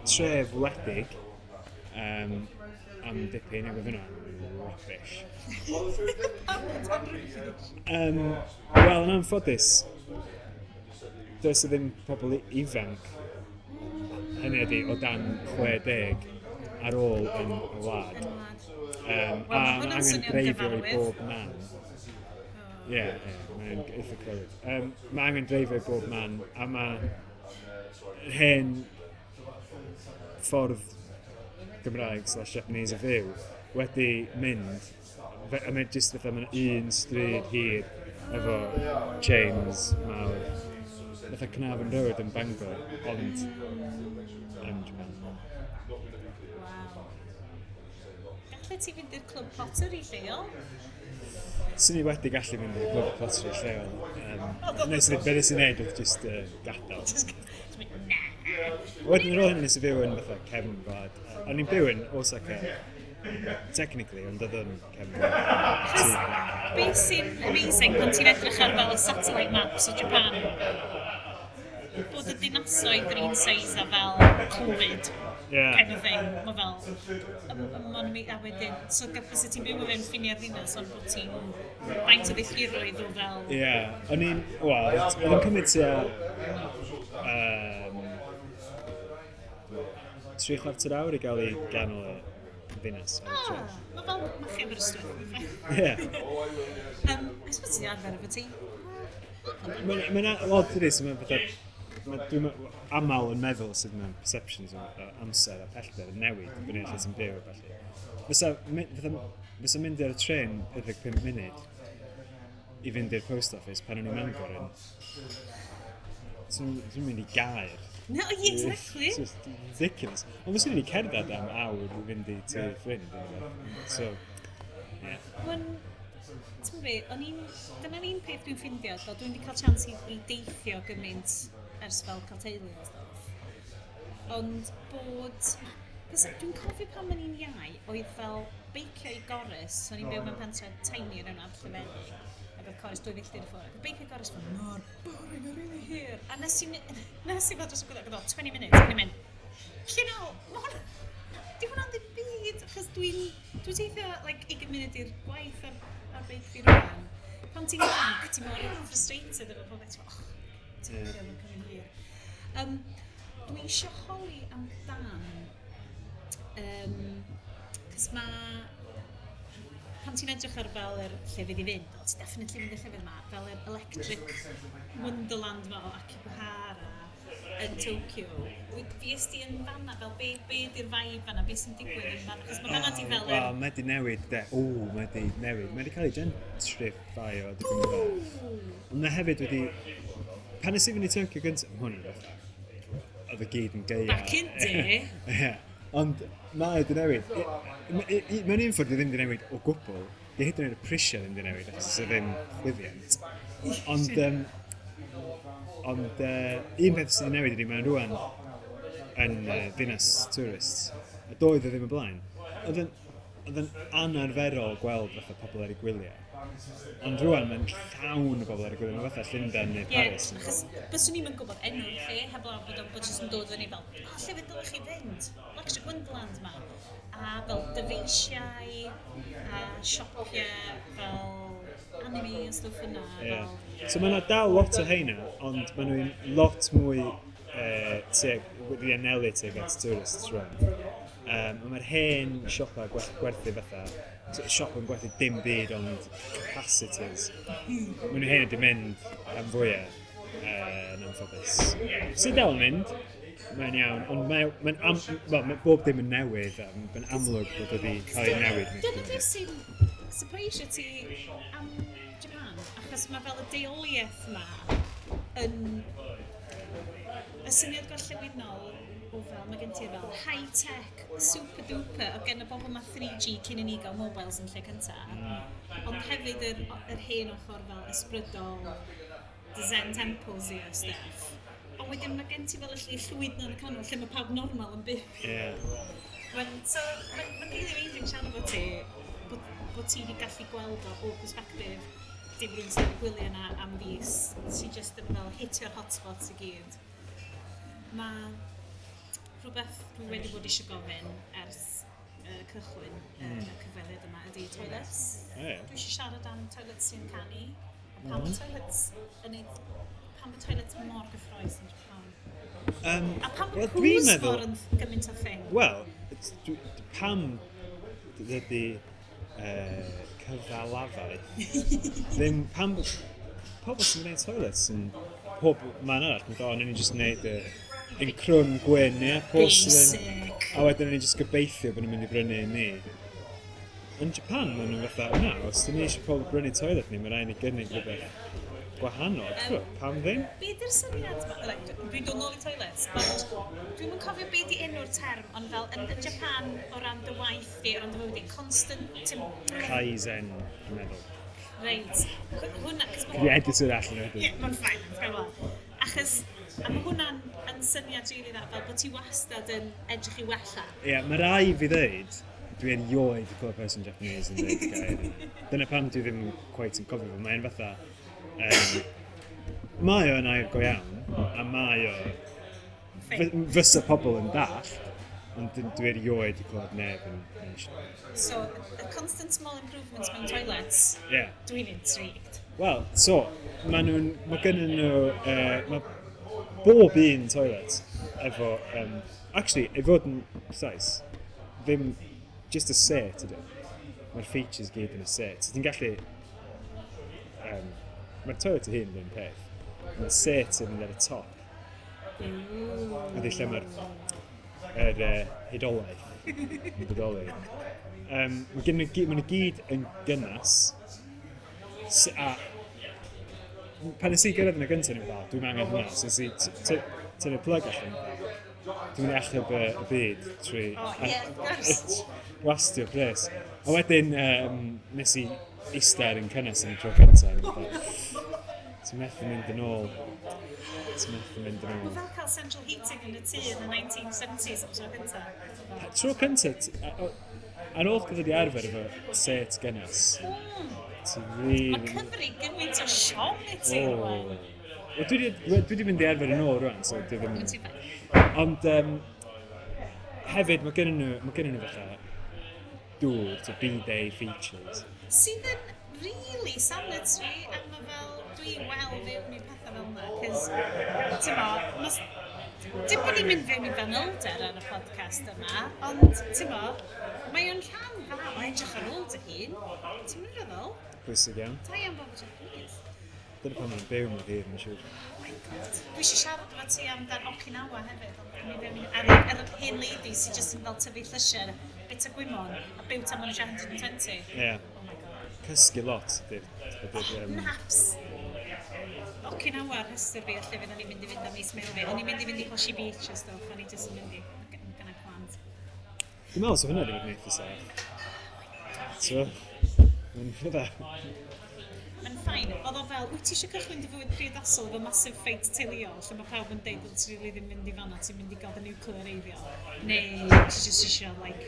tref wledig am dipyn, ac oedd hwnna'n rubbish. Pam bod o'n rubbish? Wel, yn anffodus, does 'na ddim pobl ifanc, hynny ydi, o dan 60 ar ôl yn y wlad. Yn wlad. A Wel, ma' mae hwnna'n angen swnio'n dreifio i gyfarwydd. bob man. Ie, ie, mae'n eitha clywed. Mae angen dreifio i bob man, a mae hen ffordd Gymraeg/Japanese o fyw wedi mynd, a mae jyst fatha mae'n un stryd hir efo chains mawr. Fatha Carnarvon Road yn Bangor, ond yn Japan. Waw. Gallet ti fynd i'r clwb pottery lleol? Swn i wedi gallu mynd i'r clwb pottery lleol. Nes i, be nes i wneud oedd just gadael. Just mynd, na. Wedyn ar ôl hynny nes i fyw yn fatha cefn gwlad. O'n i'n byw yn Osaka, technically, ond oedd yn cefn gwlad. Achos beth sy'n amazing pan ti'n edrych ar fel y satellite maps o Japan, bod y dinasoedd yr un size a fel Clwyd, kind of thing. Mae fel, ma'n a wedyn, so fysa ti'n byw o fewn ffiniau'r ddinas, ond bod ti'n faint o filltiroedd o fel... Ie, o'n i'n, wel, oedd yn cymryd tua 3/4 awr i gael i ganol y ddinas. Ah, mae fel Machio Aberystwyth. Ie. I suppose ti'n arfer efo ti. Mae'n odd dydi, so mae'n fatha, dwi'n aml yn meddwl sut mae perceptions o amser a pellter yn newid dibynnu ar lle ti'n byw a ballu. Fysa mynd ar y trên 45 munud i fynd i'r post office pan o'n i'n Mangor yn... Dwi'n mynd i Gaer. No, yeah, exactly. It's just ridiculous. Ond fyswn i wedi cerdded am awr i fynd i tŷ ffrind. neu rywbeth. So, yeah. Mae'n... Ti'n be, o'n i'n... Dyna'r un peth dwi'n ffindio, fel dwi'n wedi cael chance i deithio gymaint ers fel cael teulu a stwff. Ond bod... Cos dwi'n cofio pan o'n i'n iau, oedd fel beicio i Gorris, so o'n i'n byw mewn pentre tiny yn yna, Llefennig, ac oedd Corris 2 filltir i ffwrdd. Ac oedd beicio i Gorris fel mor boring a really hir. A nes i fod dros y gwylio, ac oedd o 20 minutes, ac o'n i'n mynd, you know, ma' hwnna, di hwnna'n ddim byd, achos dwi'n teithio, like, 20 munud i'r gwaith ar beic fi rwan. Pan ti'n ifanc, ti'n mor frustrated efo pob beth, ti'n oh, ti'n yeah. Mae'n cymryd hir. Dwi eisiau holi amdan, cos mae, pan ti'n edrych ar fel yr llefydd i fynd, o, ti'n definitely mynd i'r llefydd yma, fel yr electric wonderland ma o Akihabara yn Tokyo. Fues di yn fanna, fel be di'r vibe fanna, be sy'n digwydd yn fanna? Achos mae fanna di fel yr... Wel, mae di newid, de. O, mae di newid. Mae di cael ei gentrifio dipyn bach. Ond mae hefyd wedi... Pan nes i fynd i Tokyo gyntaf, ma' hwn yn fatha, oedd y gyd yn gaeaf. Back in day. Ie. Ond mae di newid. Mewn un ffordd di ddim di newid o gwbl. Di hyd yn oed y prisiau ddim di newid, achos oes 'na ddim chwyddiant. Ond un peth sydd wedi newid ydy mae'n rwan yn ddinas tourists. A doedd o ddim y blaen. Oedd yn anarferol gweld fatha pobl ar eu gwyliau. Ond rwan mae'n llawn o bobl ar eu gwyliau. Mae'n fatha Llundain neu Ie, Paris. achos byswn i'm yn gwybod enw'r lle, heblaw bod o'n bod jyst yn dod fyny fel, o, lle fe dylech chi fynd? Electric Wonderland ma. A fel dyfeisiau, a siopau, fel anime a stwff yna. Ie. Fel, So mae yna dal lot o heina, ond maen nhw'n lot mwy tuag, wedi anelu tuag at tourists rwan. Mae'r hen siopa gwerthu fatha, siop yn gwerthu dim byd ond capacitors. Maen nhw hen wedi mynd am fwyaf yn anffodus. Sydd dal yn mynd, Mae'n iawn, ond mae'n well, mae bob dim yn newydd, a mae'n amlwg bod wedi cael ei newid. Dyna beth sy'n surprisio ti am Japan, achos mae fel y deuoliaeth ma yn y syniad gorllewinol o fel, mae gen ti fel high-tech, super duper, o gen y bobl ma 3G cyn i ni gael mobiles yn lle cynta. Ond hefyd yr hen ochr fel ysbrydol, the Zen temples i a stuff. Ond wedyn mae gen ti fel y lle llwyd na yn y canol lle mae pawb normal yn byw. So, mae'n really amazing siarad efo ti, bod ti wedi gallu gweld o perspective dim rhywun sy'n gwylio yna am fis, ti just yn fel hitio'r hotspots i gyd. Mae rhywbeth dwi wedi bod eisiau gofyn ers cychwyn y cyfweliad yma ydy toilets. Dwi eisiau siarad am toilets sy'n canu. A pam mm. toilets yn ei... Pam y toilets mor gyffrous yn Japan? A pam y well, pŵs mor yn gymaint o thing? Wel, pam dydy cyfalafaeth ddim pam pobl sy'n gwneud toilets yn pob man arall yn dod, ni'n just gwneud y yn crwn gwyn, ie, porcelain. Basic. A wedyn ni'n just gobeithio bod nhw'n mynd i brynu i ni. Yn Japan, maen nhw'n fatha, na, os dyn ni eisiau pobl brynu toilet ni, mae rhaid ni gynnig rhywbeth gwahanol. Um, pam ddim? Be di'r syniad ma? Like, dwi'n dod nôl i toilets, ond dwi'm yn cofio be di enw'r term, ond fel yn Japan o ran dy waith di, o ran dy fywyd di, constant... Kaizen, dwi'n meddwl. Reit. Hwna... Dwi editor allan wedyn. Ie, mae'n fine, mae'n fine. Achos, a mae hwnna'n yn syniad rili dda, fel bod ti wastad yn edrych i wella. Ie, yeah, mae rai fi ddeud, dwi erioed wedi clywed person Japanese yn dweud y gair yna. Dyna pam dwi ddim quite yn cofio fo. Mae'n fatha... Mae o'n air go iawn, a mae o... Fysa pobl yn dallt, ond dwi erioed wedi clywed neb yn So, y constant small improvements mewn toilets, yeah. Dwi'n intrigued. Wel, so, mae gennyn nhw... Mae bob un toilet efo... Actually, i fod yn precise, ddim just y set ydw. Mae'r features gyd yn y set. So, ti'n gallu... Mae'r toilet ei hun yn un peth. Mae'r set yn mynd ar y top. Ydy lle mae'r hudolaeth yn bodoli. Mae nhw gyd yn gynnas. A pan nes i gyrraedd yn y gyntaf, ni'n fel, dwi'n angen hwnna. So nes i tynnu plug allan. Dwi'n mynd i achub y byd trwy wastio pres. A wedyn nes i eistedd ar un cynnes yn y tro cyntaf. Ti'n methu mynd yn ôl. Ti'n methu mynd yn ôl. Mae fel cael central heating yn y tŷ yn y 1970s am tro cyntaf. Tro cyntaf, ar ôl gyda di arfer efo set gynnes, ti'n really... Mae Cymru gymaint o siom i ti rwan. Wel, dwi wedi mynd i arfer yn ôl rwan, so dwi ddim... Ond hefyd, mae gennyn nhw fatha dŵr, so bidet features. Sydd yn really sanitary, a mae fel, dwi wel fewn i pethau fel yna, cos, ti'n mo, dim bod ni'n mynd fewn i fanylder ar y podcast yma, ond, ti'n mo, mae o'n rhan dda o edrych ar ôl dy hun. Ti'n mynd feddwl? Pwysig iawn. Da iawn bob Japanese. Dyna pan mae'n byw mewn hir, mae'n siŵr. Oh my god. Dwi eisiau siarad efo ti amdan Okinawa hefyd, ond mi fewn i ar yr hen lady sy'n just yn fel tyfu llysiau, bit o gwymon, a byw tan maen nhw 120. Ie. Yeah. Oh my god. Cysgu lot. Naps! Okinawa rhestr fi, lle fydd o'n i'n mynd i fynd am mis Mehefin. O'n i'n mynd i fynd i Hoshi Beach a stuff, o'n i just yn mynd i gyda plant. Dwi'n meddwl so hwnna wedi bod yn eitha saff. So, mae'n fydda. Mae'n fine. Oedd o fel, wyt ti eisiau cychwyn dy fywyd priodasol efo massive fight teuluol, lle mae pawb yn deud bod ti really ddim mynd i fanna, ti'n mynd i gael dy nuclear eiddio. Neu ti just eisiau, like,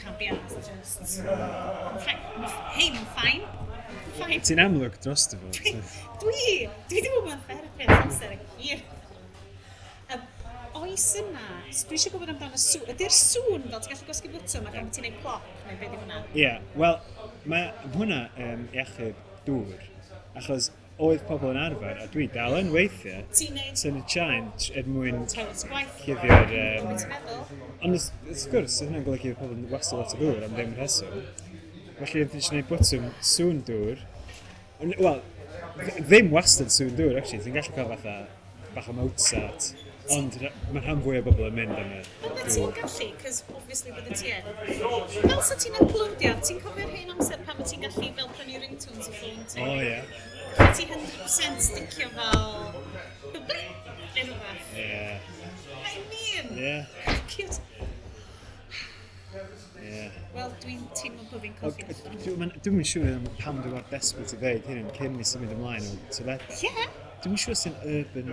can't be arsed, just... Hei, mae'n fine. Fine. Ti'n amlwg dros dy fod. Dwi wedi bod mewn therapi ers amser hir. Oes yna, dwi eisiau gwybod amdano sŵn. Ydy'r sŵn fel ti'n gallu gwasgu bwtwm ac am ti'n neud plop, neu beth yw hwnna? Ie, yeah, wel, mae hwnna i achub dŵr, achos oedd pobl yn arfer, a dwi dal yn weithiau, tynnu chain er mwyn cuddio'r... Be ti'n meddwl? Ond wrth gwrs, oedd hynna'n golygu pobl yn wastio lot o ddŵr am ddim rheswm. Felly, oedd eisiau gwneud bwtwm sŵn dŵr. Wel, ddim wastad sŵn dŵr, actually. Ti'n gallu cael fatha bach o Mozart. Ond mae rhan fwy o bobl yn mynd am y Bydde ti'n dŵr. gallu, cos obviously bydde ti yn. Fel sa ti'n uploadio, ti'n cofio'r hen amser pan ti'n gallu fel prynu ringtones i ffôn ti? O, ie. Gallu ti 100% sticio fel blip, neu rhywbeth. Ie. I mean, Ie. cute. Ie. Wel, dwi'n teimlo bod fi'n colli allan. Dwi'm yn siŵr am pam dwi mor desperate i ddeud hyn cyn mi symud ymlaen o teledu. Ie. Dwi'm yn siŵr sy'n urban,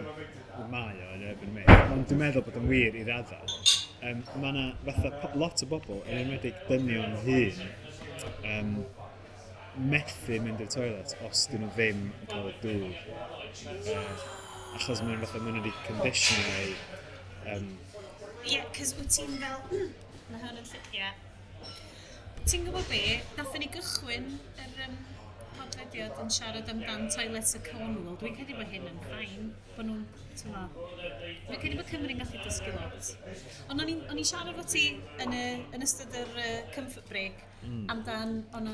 mae o yn urban myth, ond dwi'n meddwl bod yn wir i raddau. Mae yna fatha lot o bobl, yn enwedig dynion hŷn, methu mynd i'r toilet os dyn nhw ddim yn cael y dŵr. Achos mae'n fatha, maen nhw wedi conditionio eu Ie, cos wyt ti'n fel, mae hwn yn lle, ie. Ti'n gwybod be, nathon ni gychwyn yr podlediad yn siarad amdan toilets y Cornwall. Dwi'n credu bod hyn yn fine, bod nhw'n, ti'n gwbod, dwi'n credu bod Cymru'n gallu dysgu lot. Ond o'n i'n siarad efo ti yn ystod yr comfort break amdan o'na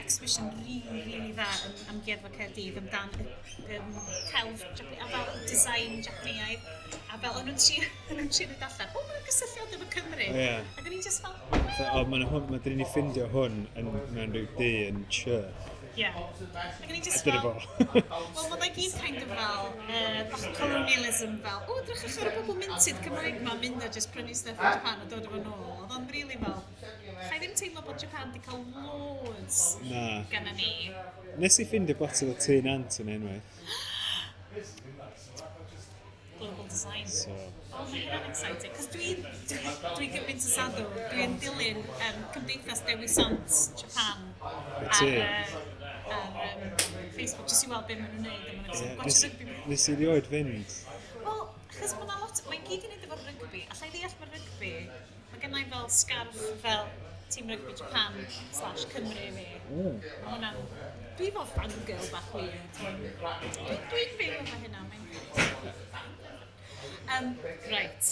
exhibition really, really dda yn Amgueddfa Caerdydd amdan celf a fel design Japaneaidd a fel o'n nhw'n trio dod allan, o, mae'n gysylltiad efo Cymru. Ie. Ac o'n i'n just fel, Fatha, o, mae'n hwn, mae dyn ni ffindio hwn yn, mewn rhyw dŷ yn church. Ie. Ac o'n i'n A just dyna fel, fo. wel, mae'n gyd kind of fel, bach colonialism fel, o, drychwch ar y bobl minted Cymraeg ma, mynd a just prynu stuff yn Japan a dod efo nôl. Oedd o'n really fel, cha i ddim teimlo bod Japan di cael loads Na. gynna ni. Nes i ffindio botel o Tŷ Nant yn unwaith. Global design. So, Oh, mae hynna'n exciting. Cos dwi gymaint o sadw. Dwi'n dilyn Cymdeithas Dewi Sant Japan Y ar, ti? ar Facebook, jyst i weld beth maen nhw'n neud. A maen nhw'n ie, yeah, gwatch rygbi. nes i rioed fynd. Wel, achos mae 'na lot, mae'n gyd i wneud efo rygbi. Alla i ddeall mae rygbi, mae gennau fel scarf fel Tîm Rygbi Japan slash Cymru fi. Mae hwnna'n... Dwi fel fangirl bach weird. Dwi'n byw efo hynna, mae'n... Right.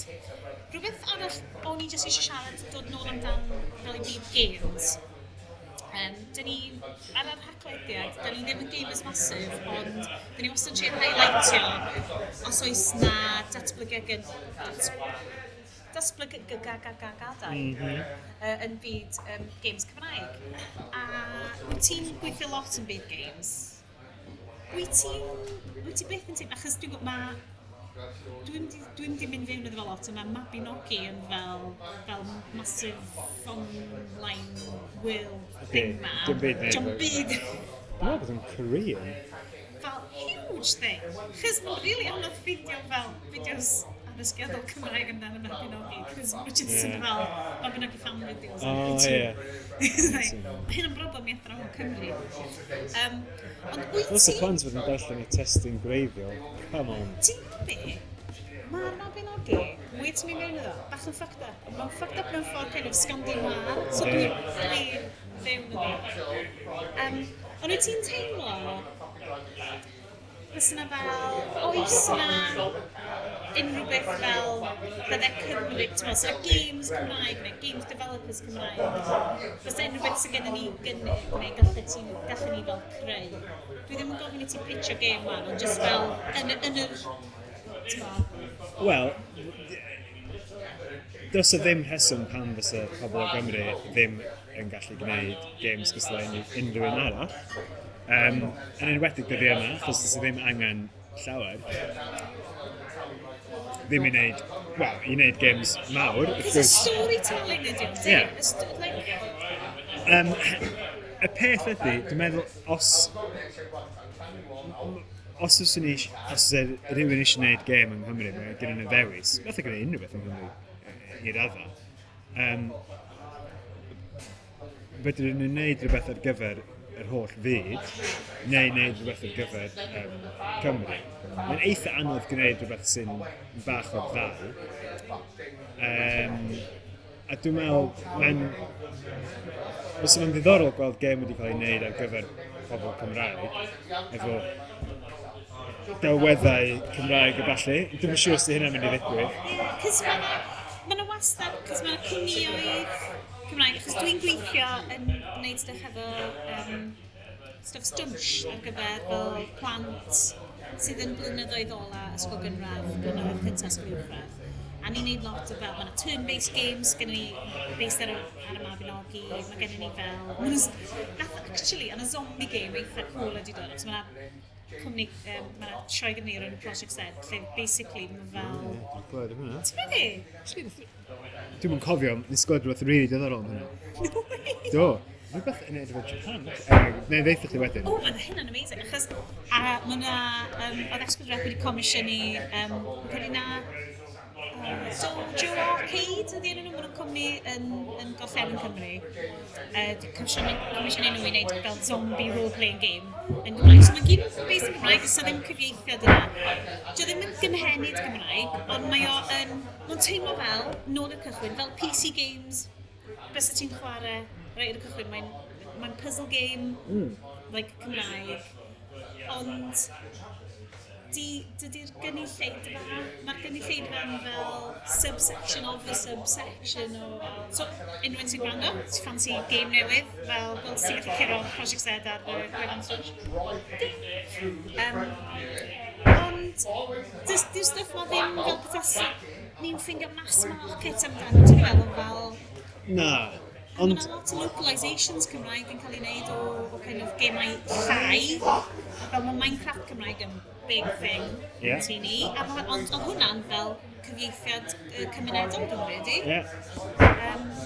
Rhywbeth arall o'n i jyst eisiau siarad, dod nôl amdan fel i byd games. Dyn ni, ar yr Haclediad, dyn ni ddim yn gamers massive, ond dyn ni wastad yn trio highlightio os oes na datblygiad datblygiadau yn byd games Cymraeg. A wyt ti'n gweithio lot yn byd games? Wyt ti byth yn teimlo, achos dwi'n gwybod, ma, dwi'n di mynd fewn iddo fo lot, a mae Mabinogi yn fel massive online world thing ma. Dim byd neud Dim efo- byd. Dwi'n meddwl bod yn Korean. Fel huge thing. Chos mae'n really anodd ffindio fel fideos addysgiadol Cymraeg amdano Mabinogi, cos mae'n just yn Ie. fel Mabinogi fan videos O, ar YouTube. ie. Like, mae hyn yn broblem i athrawon Cymru. Ond wyt Os y ti... plant fod yn darllen y testun gwreiddiol, come on. Ti'n gwybod be? Mae'r Mabinogi, mwy ti'n mynd mewn iddo, bach yn fucked up. Ond mae'n fucked up mewn ffordd kind of Scandinoir, so dwi fewn iddo. Ond wyt ti'n teimlo, fysa 'na fel, oes 'na unrhyw beth fel bydde Cymru, ti'n meddwl, so games Cymraeg neu games developers Cymraeg, fysa unrhyw beth sydd gennym ni gynnig neu gallen ni fel creu. Dwi ddim yn gofyn i ti pitcho game wan, ond just fel yn yr, ti'n meddwl, Wel, does 'na ddim rheswm pam fysa pobl o Gymru ddim yn gallu gwneud games gystal â unrhyw un arall. Yn enwedig dyddiau yma, achos does 'na ddim angen llawer. Ddim i wneud, wel, i wneud games mawr, wrth It's a gwrs. storytelling ydi o, Ie. yeah. Like, Y peth ydy, dwi'n meddwl, os oes rhywun eisiau gwneud gêm yng Nghymru, mae gen nhw ddewis. Fatha gwneud unrhyw beth yng Nghymru, i raddau. Fedrwn nhw wneud rhywbeth ar gyfer yr holl fyd, neu wneud rhywbeth ar gyfer Cymru. Mae'n eitha anodd gwneud rhywbeth sy'n bach o'r ddau. A dwi'n meddwl, mae'n... Fysa fo'n ddiddorol gweld gêm wedi cael ei wneud ar gyfer pobl Cymraeg, efo delweddau Cymraeg a ballu. Dwi'm yn siŵr os 'di hynna'n mynd i ddigwydd. Cos mae 'na wastad, cos mae 'na cwmnïoedd Cymraeg, achos dwi'n gweithio yn gwneud stuff efo stuff stwnsh ar gyfer fel plant sydd yn blynyddoedd ola ysgol gynradd, blynyddoedd cyntaf ysgol uwchradd. A ni'n neud lot o fel, mae yna turn-based games gen ni based ar y Mabinogi, mae gen ni fel... Nath, actually, yna zombie game eitha cool wedi dod, achos mae yna cwmni, mae yna sioe gen ni o'r enw Project Z, lle basically mae fel... Ie, dwi'n clywed am hwnna. Ti'n meddwl? Dwi'm yn cofio, nes glywed rhywbeth rili diddorol am hwnna. No way! Do. Rhywbeth yn edrych o Japan. Anyway, neu ddeitha chdi wedyn. O, mae hynna'n amazing, achos a mae yna, oedd S4C wedi comisiynu, credu na, Dojo Arcade ydy enw nhw, maen nhw'n cwmni yn Gorllewin Cymru. 'Di comisiynu nhw i wneud fel zombie role-playing game yn Gymraeg. So mae'n gyd based yn Gymraeg, does 'na ddim cyfieithiad yna. Dio ddim yn gynhenid Gymraeg, ond mae o yn, mae'n teimlo fel, nôl i'r cychwyn, fel PC games, bysa ti'n chwarae reit ar y cychwyn, mae'n puzzle game, like Cymraeg, ond dydy'r gynulleidfa, mae'r gynulleidfa yn fel subsection of a subsection o... So, unrhyw un sy'n gwrando, ti'n ffansi game newydd, fel ti'n gallu curo Project Z ar y gwefan Stwnsh. Ding! Ond, di'r stwff ma ddim fel petasa ni'n ffindio mass market amdano, ti'n meddwl fel... Na, Ond ond... mae yna lot o localisations Cymraeg yn cael ei wneud o kind of gemau llai. Fel mae Minecraft Cymraeg yn big thing ti ni. A ond oedd hwnna'n fel cyfieithiad cymunedol, dwi'n credu. Ie.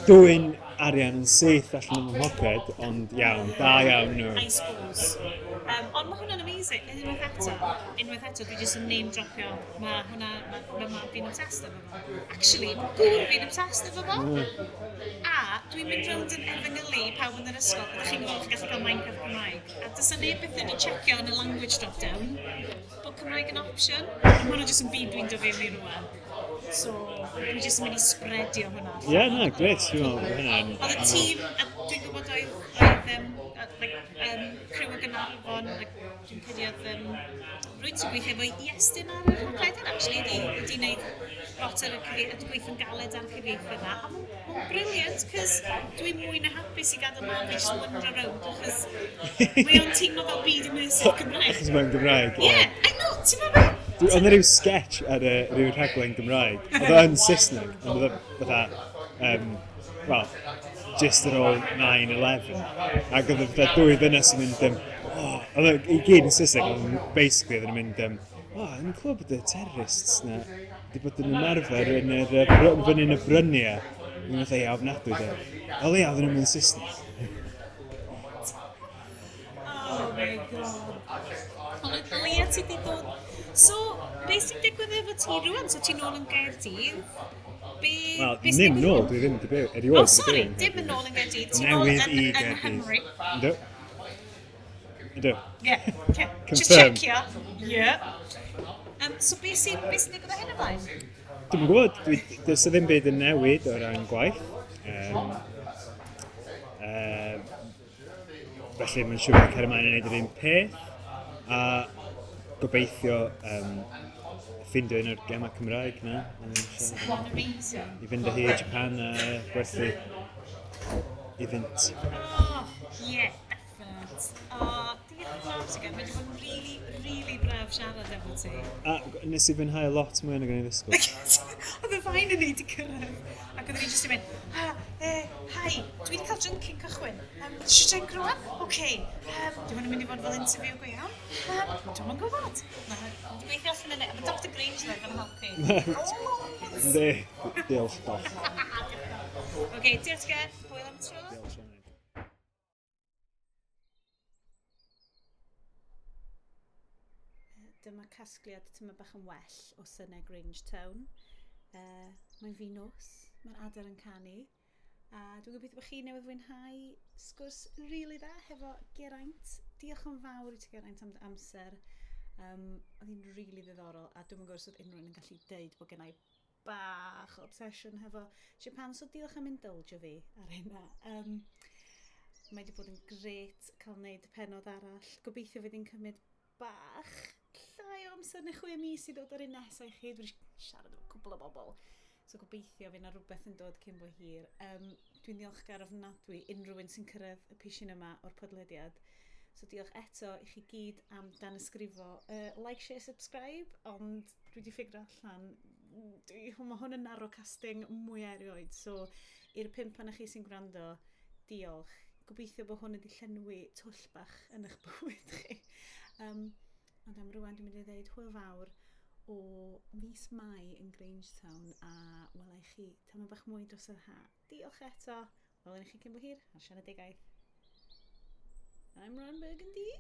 Dwyn arian yn syth allan o'n mhoced, ond iawn, da iawn nhw. I suppose. Ond mae hwnna'n amazing. Unwaith eto, dwi jyst yn name dropio. Mae hwnna, mae mab fi'n obsessed efo fo. Actually, mae gŵr fi'n obsessed efo fo. A dwi'n mynd rownd yn efengylu i pawb yn yr ysgol. Ydych chi'n gwybod chi'n gallu cael Minecraft Cymraeg. A does 'na neb byth wedi checio yn y language drop-down bod Cymraeg yn option. A mae hwnna jyst yn byd dwi'n dod fewn i rŵan. So, dwi jyst yn mynd i spreadio hwnna. Ie, na, gret, dwi'n meddwl bod hynna'n... Oedd y tîm, a dwi'n gwybod oedd criw o Gaernarfon, like, dwi'n credu oedd rwy'n sy'n gweithio efo Iestyn ar y rhaglen, actually, wedi wneud lot ar y cyfieithu, wedi gweithio'n galed ar y cyfieithu yna. A mae'n brilliant, cos dwi'n mwy na hapus i gadael mam fi just wander around, achos mae o'n teimlo fel byd immersive Cymraeg. Achos mae'n Gymraeg. Yeah, I know, ti'n meddwl? Oedd 'na ryw sketch ar y ryw rhaglen Gymraeg. Oedd o yn Saesneg, ond oedd o fatha, well, just ar ôl 9/11. Ac oedd o fatha dwy ddynes yn mynd, oh, oedd o i gyd yn Saesneg, ond basically oedd yn mynd, oh, yn clywed bod y terrorists na wedi bod yn ymarfer yn yr, fyny yn y bryniau. Yn fatha, ia, ofnadwy, de. O leia, oedden nhw'n mynd Saesneg. Oh my god. Ond o leia ti wedi dod... So, beth sy'n digwydd efo ti rŵan? So ti'n nôl yn Gaerdydd? Be, Wel, be sy'n ddim digwydd nôl, rŵan? dwi ddim wedi byw, erioed Oh, wedi sorry, byw yn dim yn Nghaerdydd. nôl yn Gaerdydd. Ti'n nôl Newydd yn, i yn Gaerdydd. Nghymru. Yndw. Yndw. Yeah, okay. Just Confirm. checio. Yeah. So beth sy'n digwydd o hyn ymlaen? Dwi'm yn gwybod, does 'na ddim byd yn newid o ran gwaith. Felly mae'n siŵr bod cario ymlaen yn gwneud yr un peth. A gobeithio ffindio un o'r gemau Cymraeg na. Mae'n amazing. I fynd â hi i Japan a gwerthu iddynt. Oh, yeah, definite. Oh, diolch yn fawr ti gen. Mae wedi bod yn really, really braf siarad efo ti. A nes i fwynhau lot mwy nag o'n i ddisgwyl. Oedd y fain yn ni wedi cyrraedd. Ac oedden ni jyst yn mynd, ha, hi, dwi wedi cael drink cyn cychwyn. Eisiau drink rwan? Oce. Dwi'n mynd i fod fel interview go iawn? Dwi'm yn gwybod. Mae wedi gweithio allan yna. Mae Dr Grange yn helpu. Oh, Yndi, diolch, doc. Oce, diolch gen. Hwyl am y tro. Diolch, Sioned. Dyma casgliad tyma bach yn well o synau Grange Town. Mae'n fi nos, mae'r adar yn canu. A dwi'n gobeithio bod chi newydd fwynhau sgwrs rili dda hefo Geraint. Diolch yn fawr i ti Geraint am dy amser. Oedd hi'n rili ddiddorol a dwi'm yn gwybod os oedd unrhyw un yn gallu deud bod gennai bach o obsession hefo Japan, so diolch am indulgio fi ar hynna. Mae wedi bod yn grêt cael wneud pennod arall. Gobeithio fydd hi'n cymryd bach llai o amser neu 6 mis i ddod ar un nesaf i chi. Dwi wedi siarad efo cwbl o bobl. So gobeithio fydd yna rhywbeth yn dod cyn bo hir. Dwi'n ddiolchgar ofnadwy unrhyw un sy'n cyrraedd y pishin yma o'r podlediad. So diolch eto i chi gyd am danysgrifo. Like, share, subscribe, ond dwi wedi ffigur allan, mae hwn yn narrowcasting mwy erioed. So i'r pump pan chi sy'n gwrando, diolch. Gobeithio bod hwn wedi llenwi twll bach yn eich bywyd chi. Ond am rwan dwi'n mynd i ddeud hwyl fawr o mis Mai yn Grangetown a welai chi tamad bach mwy dros yr ha. Diolch eto. Welwn i chi cyn bo hir ar Sianedigaeth. I'm Ron Burgundy.